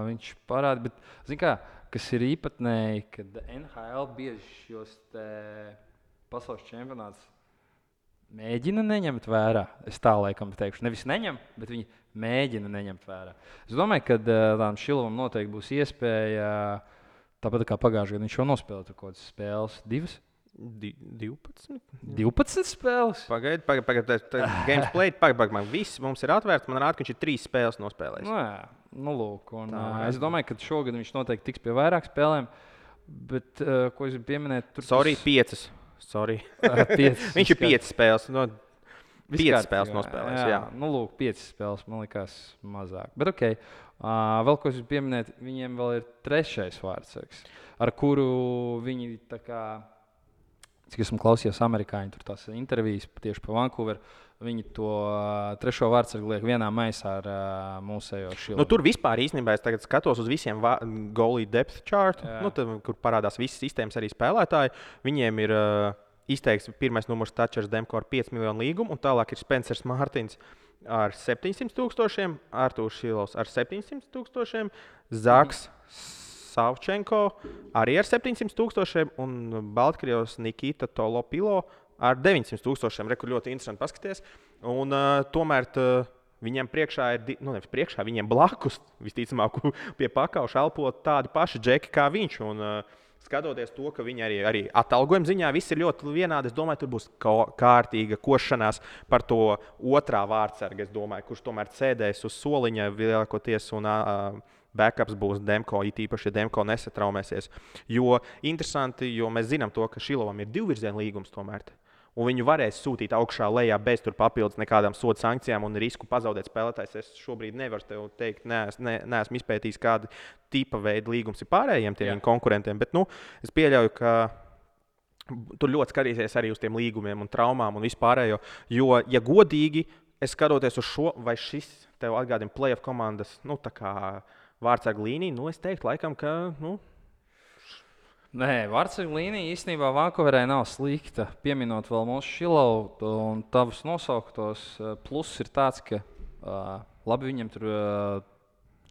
Viņš parāda, bet kas ir īpatnēji, kad NHL bieži šos pasaules čempionātus mēģina neņemt vērā. Es tā laikam teikšu, nevis neņem, bet viņi mēģina neņemt vērā. Es domāju, ka tādam Šilovam noteikti būs iespēja, tāpat kā pagājušajā gadā viņš jau nospēlēja kaut kādas spēles, 2. 12. 12 spēles. Pagaidiet, games played, pagaidiet, viss mums ir atvērts. Man rāda, ka viņš ir 3 spēles nospēlējis. Nu, jā, lūk. Es domāju, ka šogad viņš noteikti tiks pie vairāk spēlēm. Bet, ko es gribu pieminēt, tur 5. Viņš ir 5 spēles. 5 spēles nospēlējis. Jā. Nu, lūk, 5 spēles man likās mazāk. Bet, ok, vēl ko es gribu pieminēt, viņiem vēl ir 3. vārdsargs, ar kuru viņi tā kā, cik esmu klausījies amerikāņu, tur tās intervijas tieši par Vancouveru, viņi to 3. vārdsargu liek vienā maisā ar mūsējo Šilovu. Nu, tur vispār īstenībā es tagad skatos uz visiem goalie depth chart, kur parādās visas sistēmas arī spēlētāji. Viņiem ir izteikts pirmais numurs Tačers Demko ar 5 miljonu līgumu, un tālāk ir Spencers Mārtiņš ar 700,000, Artūrs Šilovs ar 700,000, Zaks Savčenko arī ar 700,000 un Baltkrievs Nikita Tolopilo ar 900,000. Reku ļoti interesanti paskaties. Un tomēr viņiem priekšā ir, nevis priekšā, viņiem blakus visticamāk pie pakauša elpo tādi paši džeki kā viņš. Un, skatoties to, ka viņi arī atalgojuma ziņā viss ir ļoti vienādi, es domāju, tur būs kārtīga košanās par to otrā vārdsargu. Es domāju, kurš tomēr sēdēs uz soliņa lielākoties un backups būs Demko, it īpaši, ja Demko nesatraumēsies. Jo interesanti, jo mēs zinām to, ka Šilovam ir 2-virziena līgums tomēr. Un viņu varēs sūtīt augšā lejā bez papildus nekādām soda sankcijām un risku pazaudēt spēlētājs. Es šobrīd nevaru tev teikt, neesmu izpētījis, kāda tipa veida līgums ir pārējiem tiem konkurentiem. Bet es pieļauju, ka tur ļoti skatīsies arī uz tiem līgumiem un traumām un vispārējo. Jo, ja godīgi, es skatoties uz šo, vai šis tev atgādina playoff komandas vārdsargu līniju, es teiktu laikam, ka. Nē, vārdsargu līnija īstenībā Vancouverē nav slikta. Pieminot vēl mūsu Šilovu un tavus nosauktos, pluss ir tāds, ka labi viņam tur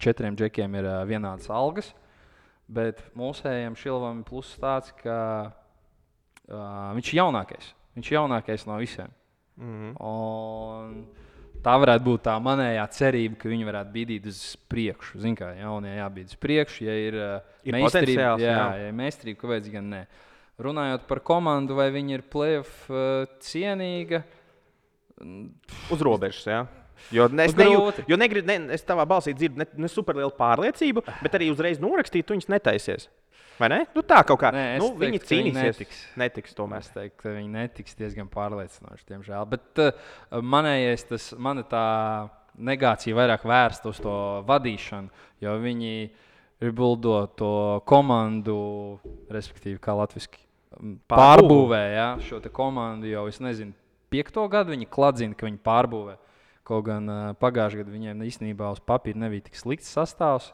4 džekiem ir vienādas algas, bet mūsējiem Šilovam ir pluss tāds, ka viņš ir jaunākais. Viņš ir jaunākais no visiem. Un tā varētu būt tā manējā cerība, ka viņi varētu bīdīt uz priekšu. Zini, kā jaunie jābīd uz priekšu, ja ir meistarība. Ja ir meistarība, kāpēc gan ne. Runājot par komandu, vai viņi ir playoff cienīga? Uz robežas, jā. Jo es tavā balsī dzirdu ne superlielu pārliecību, bet arī uzreiz norakstīt, tu viņus netaisies. Vai ne? Tā kaut kā. Nē, viņi cīnīsies. Netiks tomēr. Es teiktu, ka viņi netiks diezgan pārliecinoši, diemžēl. Bet manējais, mana tā negācija vairāk vērsta uz to vadīšanu, jo viņi rebuildo to komandu, respektīvi, kā latviski, pārbūvē šo te komandu jau, es nezinu, 5. gadu viņi kladzina, ka viņi pārbūvē. Kaut gan pagājušajā gadā viņiem īstenībā uz papīra nebija tik slikts sastāvs.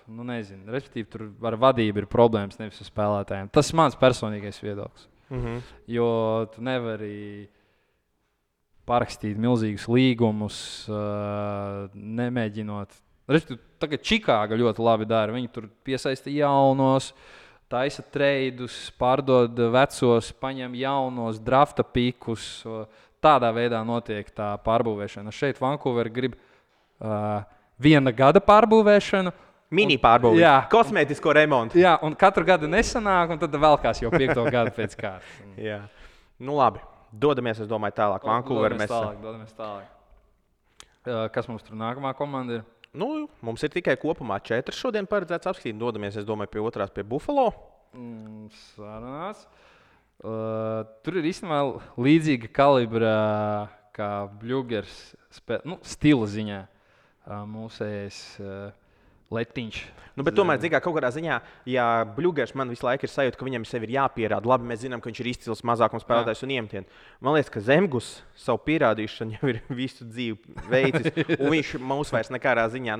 Nezinu, respektīvi, tur ar vadību ir problēmas, nevis ar spēlētājiem. Tas ir mans personīgais viedoklis. Jo tu nevari parakstīt milzīgus līgumus, nemēģinot. Respektīvi, tagad Čikāga ļoti labi dara. Viņi tur piesaista jaunos, taisa treidus, pārdod vecos, paņem jaunos, drafta pikus. Tādā veidā notiek tā pārbūvēšana. Šeit Vancouver grib 1 gada pārbūvēšanu. Mini pārbūvi, kosmētisko remontu. Jā, un katru gadu nesanāk, un tad velkās jau 5. gadu pēc kārtas. Jā. Labi. Dodamies, es domāju, tālāk. Vancouver Dodamies tālāk. Kas mums tur nākamā komanda ir? Mums ir tikai kopumā 4 šodien paredzēts apskatīt. Dodamies, es domāju, pie otrās, pie Buffalo. Sarunās. Tur ir īstenībā līdzīga kalibra kā Bļugers stila ziņā. Mūsējais Letiņš. Bet tomēr, kaut kādā ziņā, ja Bļugers man visu laiku ir sajūta, ka viņam sevi ir jāpierāda. Labi, mēs zinām, ka viņš ir izcils mazākums spēlētājs un iemetiens. Man liekas, ka Zemgus savu pierādīšanu jau ir visu dzīvi veicis. Un viņš mūs vairs nekādā ziņā,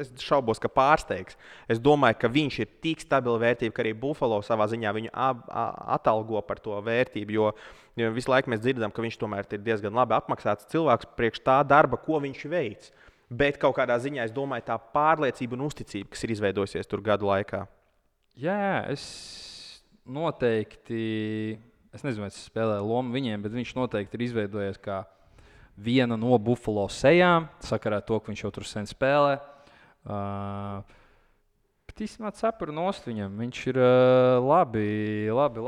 es šaubos, ka pārsteigs. Es domāju, ka viņš ir tik stabila vērtība, ka arī Buffalo savā ziņā viņu atalgo par to vērtību. Jo visu laiku mēs dzirdam, ka viņš tomēr ir diezgan labi apmaksāts cilvēks priekš tā darba, ko viņš veic. Bet kaut kādā ziņā, es domāju, tā pārliecība un uzticība, kas ir izveidojusies tur gadu laikā. Jā, es noteikti, es nezinu, vai es spēlēju lomu viņiem, bet viņš noteikti ir izveidojies kā viena no Buffalo sejām, sakarā to, ka viņš jau tur sen spēlē. Bet īstenībā cepuri nost viņam. Viņš ir labi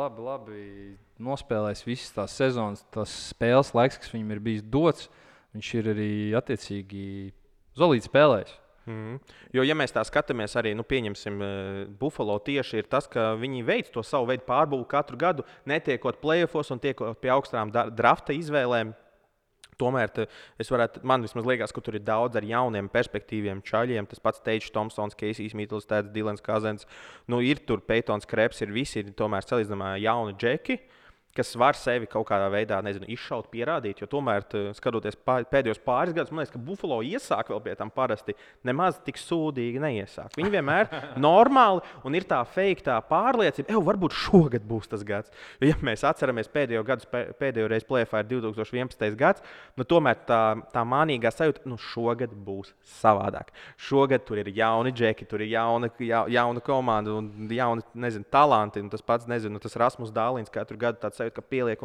nospēlējis visas tās sezonas, tās spēles laiks, kas viņam ir bijis dots. Viņš ir arī attiecīgi solīti spēlējis. Jo, ja mēs tā skatāmies, arī pieņemsim, Buffalo tieši ir tas, ka viņi veic to savu veidu pārbūvi katru gadu, netiekot playoffos un tiekot pie augstām drafta izvēlēm. Tomēr man vismaz liekas, ka tur ir daudz ar jauniem, perspektīviem čaļiem. Tas pats Teits Thompsons, Keisijs Middlesteds, Dilans Kazens. Ir tur Peytons Krebs, visi ir tomēr salīdzinājumā jauni džeki, kas var sevi kaut kādā veidā, izšaut, pierādīt. Jo tomēr, skatoties pēdējos pāris gadus, man liekas, ka Buffalo iesāk vēl pie tam parasti nemaz tik sūdīgi neiesāk. Viņi vienmēr normāli un ir tā fake, tā pārliecība, varbūt šogad būs tas gads. Jo, ja mēs atceramies pēdējo reizi play-offā ir 2011. gads, tomēr tā mānīgā sajūta, šogad būs savādāk. Šogad tur ir jauni džeki, tur ir jauna komanda un jauni, talanti. Un tas pats, tas Rasmus Dālins katru gadu tāds ka pieliek,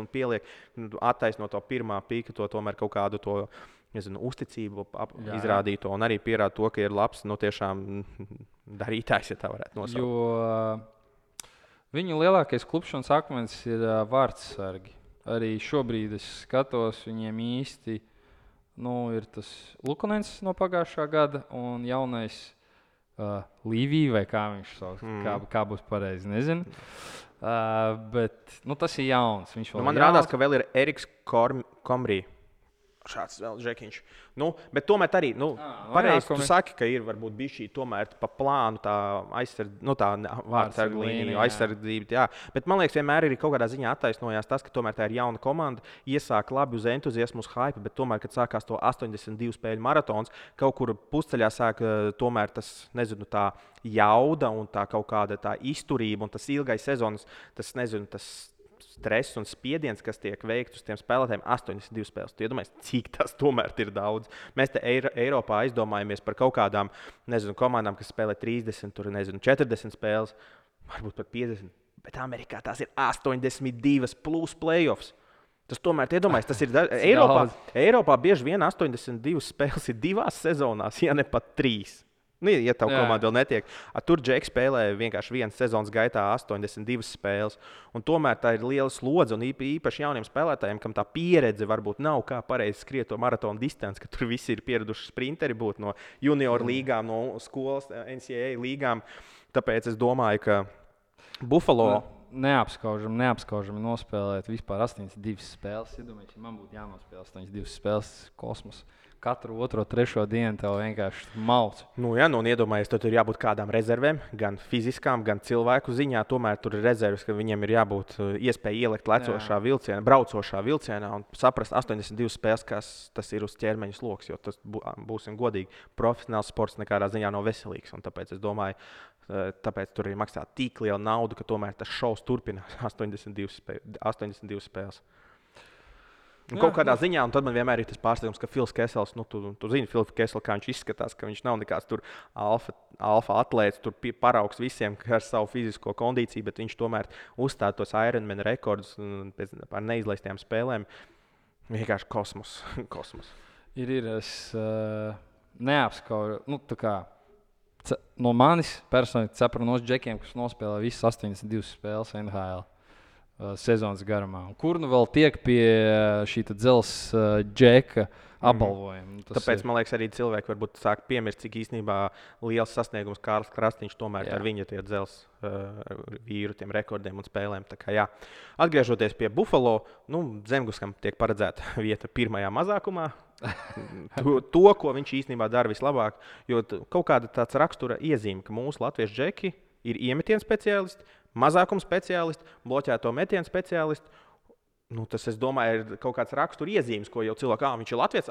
attaisno to pirmā pīka, to tomēr kaut kādu to, uzticību izrādīto un arī pierāda to, ka ir labs, tiešām darītājs, ja tā varētu nosaukt. Jo viņu lielākais klupšanas akmens ir vārdsargi. Arī šobrīd es skatos, viņiem īsti ir tas Lukonens no pagājušā gada un jaunais Līvija, vai kā viņš sauc, kā būs pareizi, nezinu. Bet tas ir jauns. Man rādās, ka vēl ir Eriks Komrī. Šāds vēl žekiņš. Bet tomēr arī, pareizi tu saki, ka ir varbūt bišķī tomēr pa plānu tā vārdsargu līnija, aizsardzība, jā. Bet man liekas, vienmēr ir kaut kādā ziņā attaisnojās tas, ka tomēr tā ir jauna komanda, iesāk labi uz entuziasmu, uz hype, bet tomēr, kad sākās to 82 spēļu maratons, kaut kur pusceļā sāk tomēr tas, tā jauda un tā kaut kāda tā izturība un tas ilgais sezonas, tas stress un spiediens, kas tiek veikts uz tiem spēlētājiem, 82 spēles. Tu iedomājies, cik tas tomēr ir daudz. Mēs te Eiropā aizdomājamies par kaut kādām, komandām, kas spēlē 30, 40 spēles, varbūt pat 50. Bet Amerikā tās ir 82 plus playoffs. Tas tomēr, iedomājies, tas ir Eiropā bieži vien 82 spēles ir 2 sezonās, ja ne pat 3. Ja tev komanda vēl netiek. Tur Džeks spēlē vienkārši vienas sezonas gaitā 82 spēles. Un tomēr tā ir liela slodze un īpaši jauniem spēlētājiem, kam tā pieredze varbūt nav kā pareizi skriet to maratonu distanci, ka tur visi ir pieraduši sprinteri būt no junior līgām, no skolas, NCAA līgām. Tāpēc es domāju, ka Buffalo neapskaužami nospēlēt vispār 82 spēles. Iedomājieties, ja man būtu jānospēlē 82 spēles kosmos. Katru otro, trešo dienu tev vienkārši malc. Un iedomājies, tur ir jābūt kādām rezervēm, gan fiziskām, gan cilvēku ziņā. Tomēr tur ir rezerves, ka viņiem ir jābūt iespēja ielikt braucošā vilcienā un saprast 82 spēles, kas tas ir uz ķermeņa sloks. Jo tas, būsim godīgi, profesionāls sports nekādā ziņā nav veselīgs. Un tāpēc es domāju, tāpēc tur ir maksā tik liela nauda, ka tomēr tas šovs turpinās 82 spēles. Kaut kādā ziņā, un tad man vienmēr ir tas pārsteigums, ka Fils Kesels, tu zini, Fils Kesels, kā viņš izskatās, ka viņš nav nekāds tur alfa atlēts, tur paraugs visiem ar savu fizisko kondīciju, bet viņš tomēr uzstāda tos Ironman rekordus par neizlaistajām spēlēm. Vienkārši kosmos. Es neapskaužu, no manis personīgi cepuru nos džekiem, kas nospēlē visas 82 spēles NHL. Sezonas garumā. Kur vēl tiek pie šī dzelzs džeka apbalvojuma? Tāpēc, man liekas, arī cilvēki varbūt sāk piemirst, cik īstenībā liels sasniegums Kārlis Krasniņš tomēr ar viņa tie dzelzs vīru, tiem rekordiem un spēlēm. Tā kā, atgriežoties pie Buffalo, Zemguskam tiek paredzēta vieta pirmajā mazākumā. To, ko viņš īstenībā dara vislabāk, jo kaut kāda tāds rakstura iezīme, ka mūsu latviešu džeki ir iemetienu speciālisti, mazākuma speciālisti, bloķēto metienu speciālisti. Tas, es domāju, ir kaut kāds rakstura iezīmes, ko jau cilvēks, viņš ir latviečs.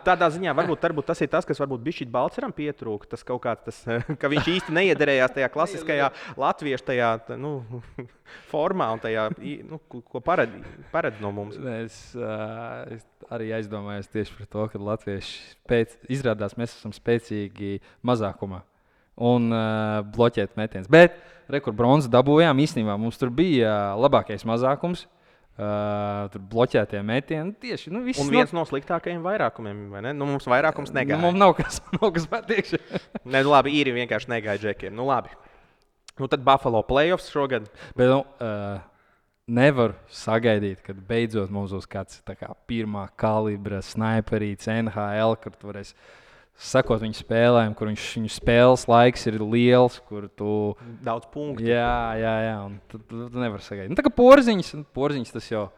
Tādā ziņā varbūt tas ir tas, kas varbūt bišķīt Balceram pietrūka. Tas kaut kāds, ka viņš īsti neiederējās tajā klasiskajā latviešu tajā, formā un tajā, ko paredz no mums. Es arī aizdomājos tieši par to, ka latvieši izrādās, mēs esam spēcīgi mazākumā. Un bloķēt metiens. Bet, kur bronzu dabūjām, īstenībā mums tur bija labākais mazākums. Tur bloķētie metieni. Tieši, Un viens no sliktākajiem vairākumiem, vai ne? Mums vairākums negāja. Mums nav kas patiekši. Nē, labi, īri vienkārši negāja džekiem. Labi. Tad Buffalo playoffs šogad. Bet, nevar sagaidīt, kad beidzot mums būs kāds pirmā kalibra sniperīts NHL, kur tu varēsi sakot viņu spēlēm, kur viņu spēles laiks ir liels, kur tu... Daudz punktu. Jā, un tu nevar sagaidīt. Tā kā porziņš tas jau...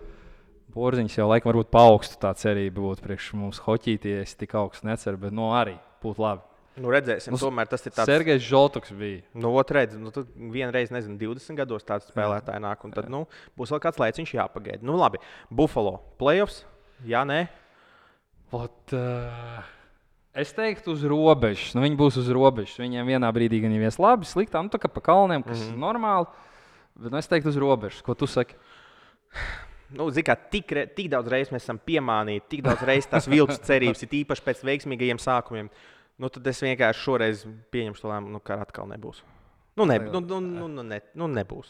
Porziņš jau laikam varbūt paaugstu tā cerība būtu priekš mums hoķītie, es tik augstu neceru, bet arī būtu labi. Redzēsim, tomēr tas ir tāds... Sergejs Žoltoks bija. Tad vienreiz, 20 gados tāds spēlētāji nāk, un tad būs vēl kāds laiciņš jāpagaida. Labi, Buffalo playoffs, jā, nē? Es teiktu uz robežas. Viņi būs uz robežas. Viņiem vienā brīdī gan jau ir labi, sliktā, tā kā pa kalniem, kas ir normāli. Bet es teiktu uz robežas. Ko tu saki? Kā tik daudz reizes mēs esam piemānīti, tik daudz reizes tās viltus cerības, ir īpaši pēc veiksmīgajiem sākumiem. Tad es vienkārši šoreiz pieņemšu to lēmumu, ka atkal nebūs. Nebūs.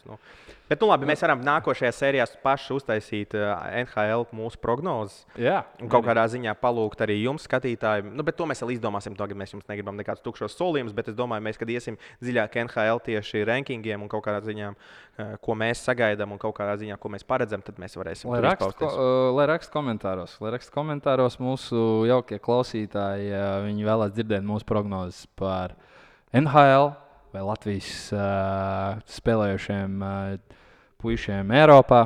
Bet, labi, mēs varam nākošajā sērijā paši uztaisīt NHL mūsu prognozes. Jā. Un kaut kādā ziņā palūgt arī jums, skatītāji. Bet to mēs vēl izdomāsim. Tagad mēs jums negribam nekādus tukšos solījumus, bet es domāju, kad iesim dziļāk NHL tieši rankingiem un kaut kādā ziņā, ko mēs sagaidām un kaut kādā ziņā, ko mēs paredzam, tad mēs varēsim izpausties. Lai raksta komentāros mūsu jaukie klausītāji, viņi vēlās dzirdēt mūsu prognozes par NHL. Vai Latvijas spēlējušiem puišiem Eiropā.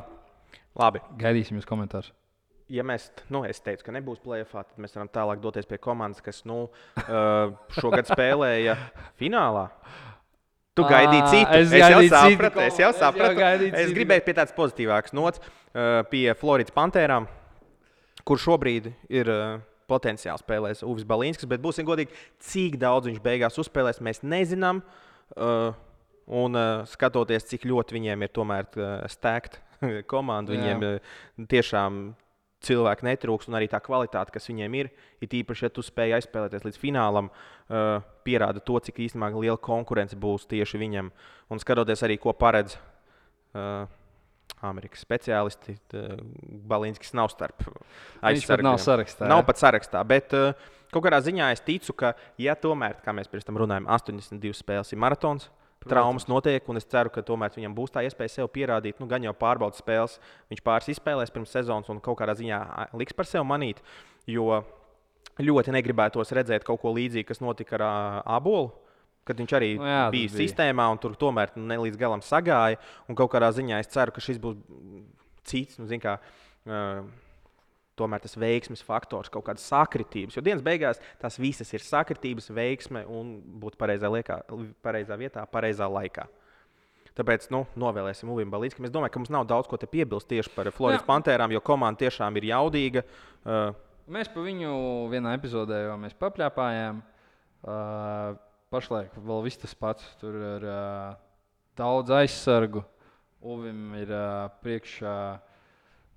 Labi. Gaidīsim jūs komentārus. Ja mēs, es teicu, ka nebūs play-offā, tad mēs varam tālāk doties pie komandas, kas šogad spēlēja finālā. Tu gaidīji citu. Es jau sapratu. Es gribēju pie tādas pozitīvākas nots, pie Floridas Pantērām, kur šobrīd ir... potenciāli spēlēs Uvis Balīnskis, bet būsim godīgi, cik daudz viņš beigās uzspēlēs, mēs nezinām. Un skatoties, cik ļoti viņiem ir tomēr stēgt komanda, viņiem tiešām cilvēki netrūks un arī tā kvalitāte, kas viņiem ir īpaši, ja tu spēj aizspēlēties līdz finālam, pierāda to, cik īstenībā liela konkurence būs tieši viņam. Un skatoties arī, ko paredz Amerikas speciālisti, Balīnskis nav starp aizsargiem. Nav sarakstā. Nav pat sarakstā, bet kaut kādā ziņā es ticu, ka, ja tomēr, kā mēs pirms tam runājam, 82 spēles ir maratons, traumas notiek, un es ceru, ka tomēr viņam būs tā iespēja sev pierādīt, gan jau pārbaudas spēles, viņš pāris izspēlēs pirms sezonas un kaut kādā ziņā liks par sevi manīt, jo ļoti negribētos redzēt kaut ko līdzīgu, kas notika ar Ābolu. Kad viņš arī bija sistēmā un tur tomēr ne līdz galam sagāja. Un kaut kādā ziņā es ceru, ka šis būs cits, tomēr tas veiksmes faktors, kaut kādas sakritības. Jo dienas beigās tās visas ir sakritības, veiksme un būt pareizā vietā, pareizā laikā. Tāpēc novēlēsim Uvim Balīnskam. Es domāju, ka mums nav daudz ko te piebilst tieši par Floridas Pantērām, jo komanda tiešām ir jaudīga. Mēs pa viņu vienā epizodē jau papļāpājām. Pašlaik vēl viss tas pats. Tur ir daudz aizsargu. Uvim ir priekšā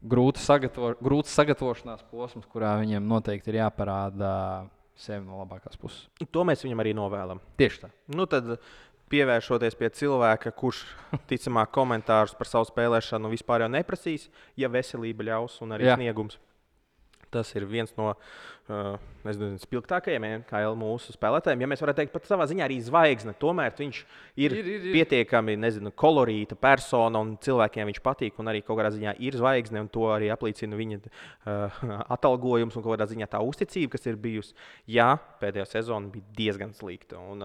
grūts sagatavošanās posms, kurā viņam noteikti ir jāparāda sevi no labākās puses. To mēs viņam arī novēlam. Tieši tā. Tad pievēršoties pie cilvēka, kurš ticamāk komentārus par savu spēlēšanu vispār jau neprasīs, ja veselība ļaus un arī sniegums. Tas ir viens no spilgtākajiem mūsu spēlētājiem. Ja mēs varētu teikt, pat savā ziņā arī zvaigzne. Tomēr viņš ir pietiekami kolorīta persona un cilvēkiem viņš patīk. Un arī kaut kādā ziņā ir zvaigzne, un to arī apliecina viņa atalgojums un kaut kādā ziņā tā uzticība, kas ir bijusi. Jā, pēdējā sezona bija diezgan slikta. Un,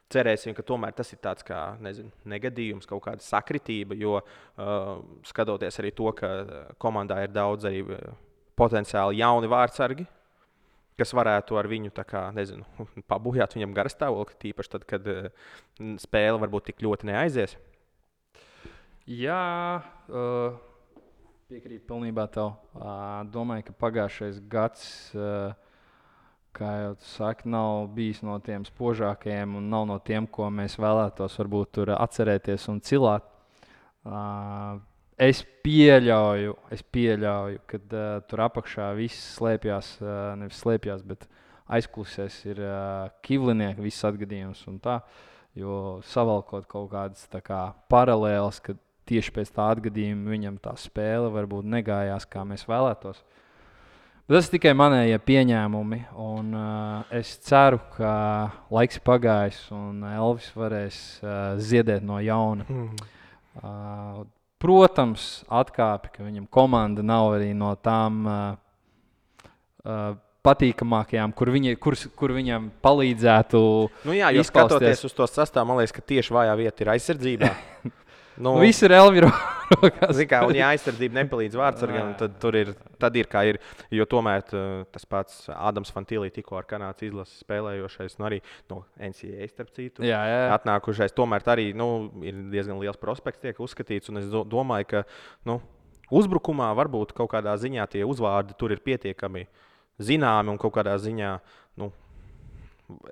cerēsim, ka tomēr tas ir tāds kā negadījums, kaut kāda sakritība, jo skatoties arī to, ka komandā ir daudz arī potenciāli jauni vārdsargi, kas varētu ar viņu pabūjāt viņam garastāvokli, tīpaši tad, kad spēle varbūt tik ļoti neaizies. Jā, piekrītu pilnībā tev. Domāju, ka pagājušais gads, kā jau tu saki, nav bijis no tiem spožākajiem un nav no tiem, ko mēs vēlētos varbūt tur atcerēties un cilāt. Es pieļauju, ka tur apakšā viss slēpjas, nevis slēpjas, bet aizkulisēs ir Kivlinieka viss atgadījums un tā. Jo savalkot kaut kādas paralēlas, kad tieši pēc tā atgadījuma viņam tā spēle varbūt negājās, kā mēs vēlētos. Bet tas ir tikai manējie pieņēmumi, un es ceru, ka laiks pagājis un Elvis varēs ziedēt no jauna. Protams, atkāpi, ka viņam komanda nav arī no tām patīkamākajām, kur viņam palīdzētu. Nu jā, jo skatoties uz to sastāvu, man liekas, ka tieši vājā vieta ir aizsardzībā. Viss ir Elvira rokās. Kā, un ja aizsardzība nepalīdz vārdsargam, tad ir kā ir. Jo tomēr tas pats Ādams Fantīlī tikko ar Kanādas izlases spēlējošais, arī no NCAA starp citu, atnākušais. Tomēr arī ir diezgan liels prospekts tiek uzskatīts. Un es domāju, ka uzbrukumā varbūt kaut kādā ziņā tie uzvārdi tur ir pietiekami zināmi un kaut kādā ziņā.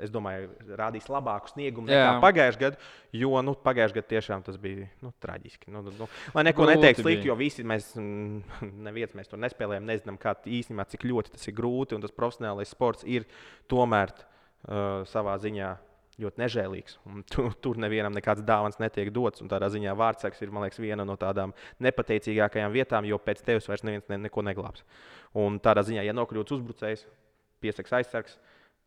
Es domāju, rādīs labāku sniegumu nekā pagājušajā gadā, jo pagājušajā gadā tiešām tas bija traģiski. Lai neko neteiktu slikti, jo visi mēs tur nespēlējam, nezinām, īstenībā, cik ļoti tas ir grūti. Un tas profesionālais sports ir tomēr savā ziņā ļoti nežēlīgs. Tur nevienam nekāds dāvans netiek dots. Un tādā ziņā vārdsargs ir, man liekas, viena no tādām nepateicīgākajām vietām, jo pēc tevis vairs neviens neko neglābs. Un tādā ziņā, ja nokļūts uzbrucējs, piesaks aizsargs,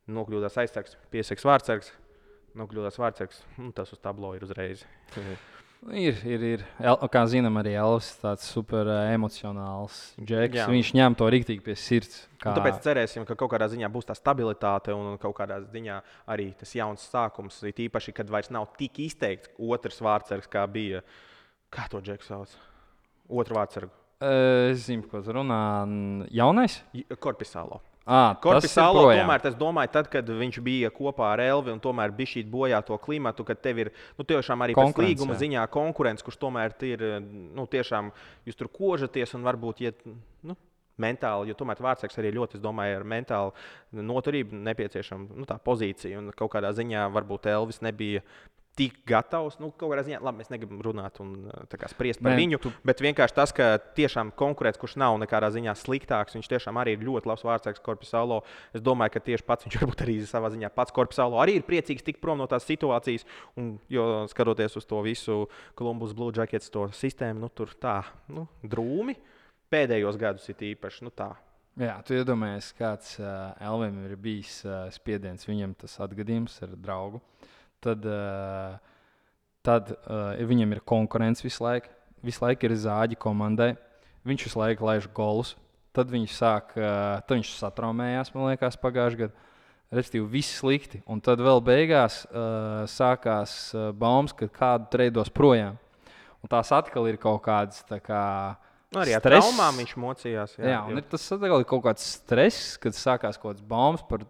nokļūdās aizsargs, piesaks vārdsargs, nokļūdās vārdsargs, tas uz tablo ir uzreiz. Ir. Kā zinām, arī Elvis ir tāds super emocionāls džeks. Viņš ņem to riktīgi pie sirds. Tāpēc cerēsim, ka kaut kādā ziņā būs tā stabilitāte un kaut kādā ziņā arī tas jauns sākums. It īpaši, kad vairs nav tik izteikts otrs vārdsargs, kā bija. Kā to džeku sauc? Otru vārdsargu. Es zinu, ko tu runā. Jaunais? Korpisālo. Korpisālo, tomēr es domāju, tad, kad viņš bija kopā ar Elvi un tomēr bija šī bojā to klimatu, kad tev ir tiešām arī pēc līguma ziņā konkurence, kurš tomēr ir tiešām jūs tur kožaties un varbūt iet mentāli, jo tomēr vārdsargs arī ļoti, es domāju, ar mentālu noturību nepieciešama tā pozīcija. Un kaut kādā ziņā varbūt Elvis nebija tik gatavs. Kaut kādā ziņā, labi, mēs negribam runāt un spriest par viņu, bet vienkārši tas, ka tiešām konkurēts, kurš nav nekādā ziņā sliktāks, viņš tiešām arī ir ļoti labs vārdsargs Korpisālo. Es domāju, ka tieši pats viņš varbūt arī savā ziņā pats Korpisālo arī ir priecīgs tikt prom no tās situācijas, jo skatoties uz to visu Columbus Blue Jackets to sistēmu, tur tā, drūmi pēdējos gadus ir īpaši, tā. Jā, tu iedomājies, kāds Elvim ir bijis spiediens, viņam tas atgadījums ar draugu. Tad viņam ir konkurence visu laiku. Visu laiku ir zāģi komandai. Viņš visu laiku laiž golus. Tad viņš satraumējās, man liekas, pagājušajā gadā. Respektīvi, viss slikti. Un tad vēl beigās sākās baumas, ka kādu treidos projām. Un tās atkal ir kaut kādas arī ar traumām viņš mocījās. Jā, un tas atkal ir kaut kāds stress, kad sākās kaut kāds baumas par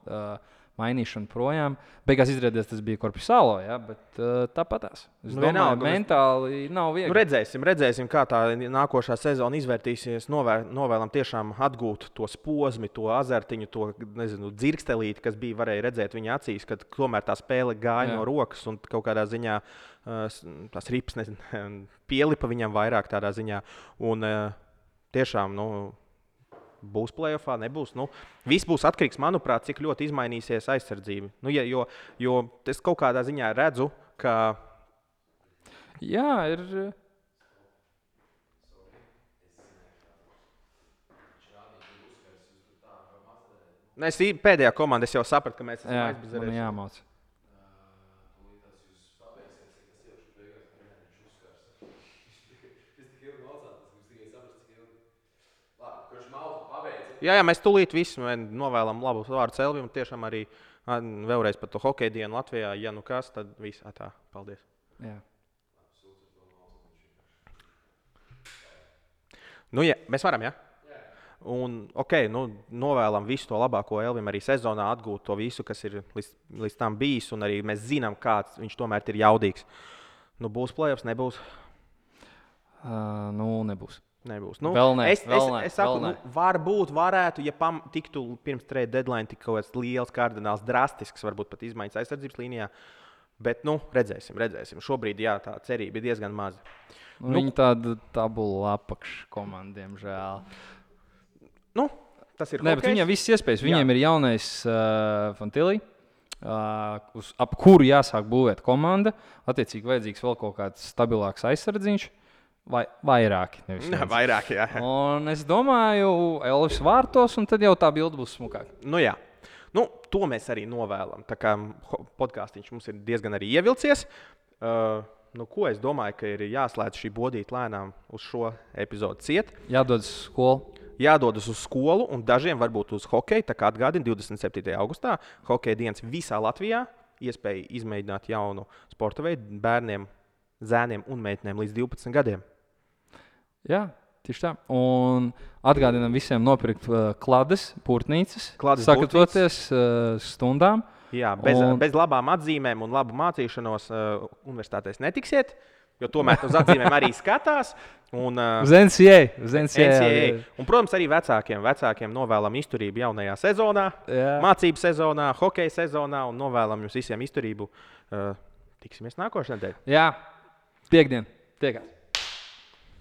mainīšanu projām. Beigās izrādījās, tas bija Korpisālo, bet tāpatās. Es domāju, mentāli nav viegli. Redzēsim, kā tā nākošā sezona izvērtīsies. Novēlam tiešām atgūt to posmu, to azartiņu, to dzirkstelīti, kas bija varēja redzēt viņa acīs, kad tomēr tā spēle gāja no rokas un kaut kādā ziņā tās rips pielipa viņam vairāk tādā ziņā. Un tiešām, būs play-offā, nebūs. Viss būs atkarīgs, manuprāt, cik ļoti izmainīsies aizsardzība. Jo es kaut kādā ziņā redzu, ka. Jā, ir. Es pēdējā komandā jau sapratu, ka mēs esam aizbizarējuši. Jā, jāmāc. Jā, mēs tūlīt visu novēlam labu vārdu Elvim. Tiešām arī vēlreiz par to hokeja dienu Latvijā. Ja kas, tad viss tā. Paldies. Jā. Mēs varam, jā? Un, novēlam visu to labāko Elvim arī sezonā, atgūt to visu, kas ir līdz tam bijis. Un arī mēs zinām, kāds viņš tomēr ir jaudīgs. Būs play-offs, nebūs? Nebūs. Nebūs. Es saku, varbūt varētu, ja tiktu pirms trade deadline tik kaut kāds liels, kardināls, drastisks, varbūt pat izmaiņas aizsardzības līnijā. Bet, redzēsim. Šobrīd, tā cerība ir diezgan maza. Viņi tāda tabula apakškomanda, diemžēl. Tas ir bet viņiem viss iespējas. Viņiem ir jaunais Fantīlī, ap kuru jāsāk būvēt komanda. Attiecīgi vajadzīgs vēl kaut kāds stabilāks aizsardziņš. Vai vairāki. Vairāk, jā. Un es domāju, Elvis vārtos, un tad jau tā bilde būs smukāka. Nu, jā. Nu, to mēs arī novēlam. Tā kā podkāstiņš mums ir diezgan arī ievilcies. Ko es domāju, ka ir jāslēdz šī bodīte lēnām uz šo epizodu ciet. Jādodas uz skolu. Jādodas uz skolu, un dažiem varbūt uz hokeju. Tā kā atgādina 27. augustā hokeja dienas visā Latvijā. Iespēja izmēģināt jaunu sporta veidu bērniem, zēniem un meitenēm līdz 12 gadiem. Jā, tieši tā. Un atgādinām visiem nopirkt klades, pūrtnīcas, sagatavoties stundām. Jā, bez labām atzīmēm un labu mācīšanos universitātēs netiksiet, jo tomēr uz atzīmēm arī skatās. Uz NCAA. Un, protams, arī vecākiem novēlam izturību jaunajā sezonā, mācību sezonā, hokeja sezonā un novēlam jums visiem izturību. Tiksimies nākošajā nedēļā. Jā, piekdien. Tiekās.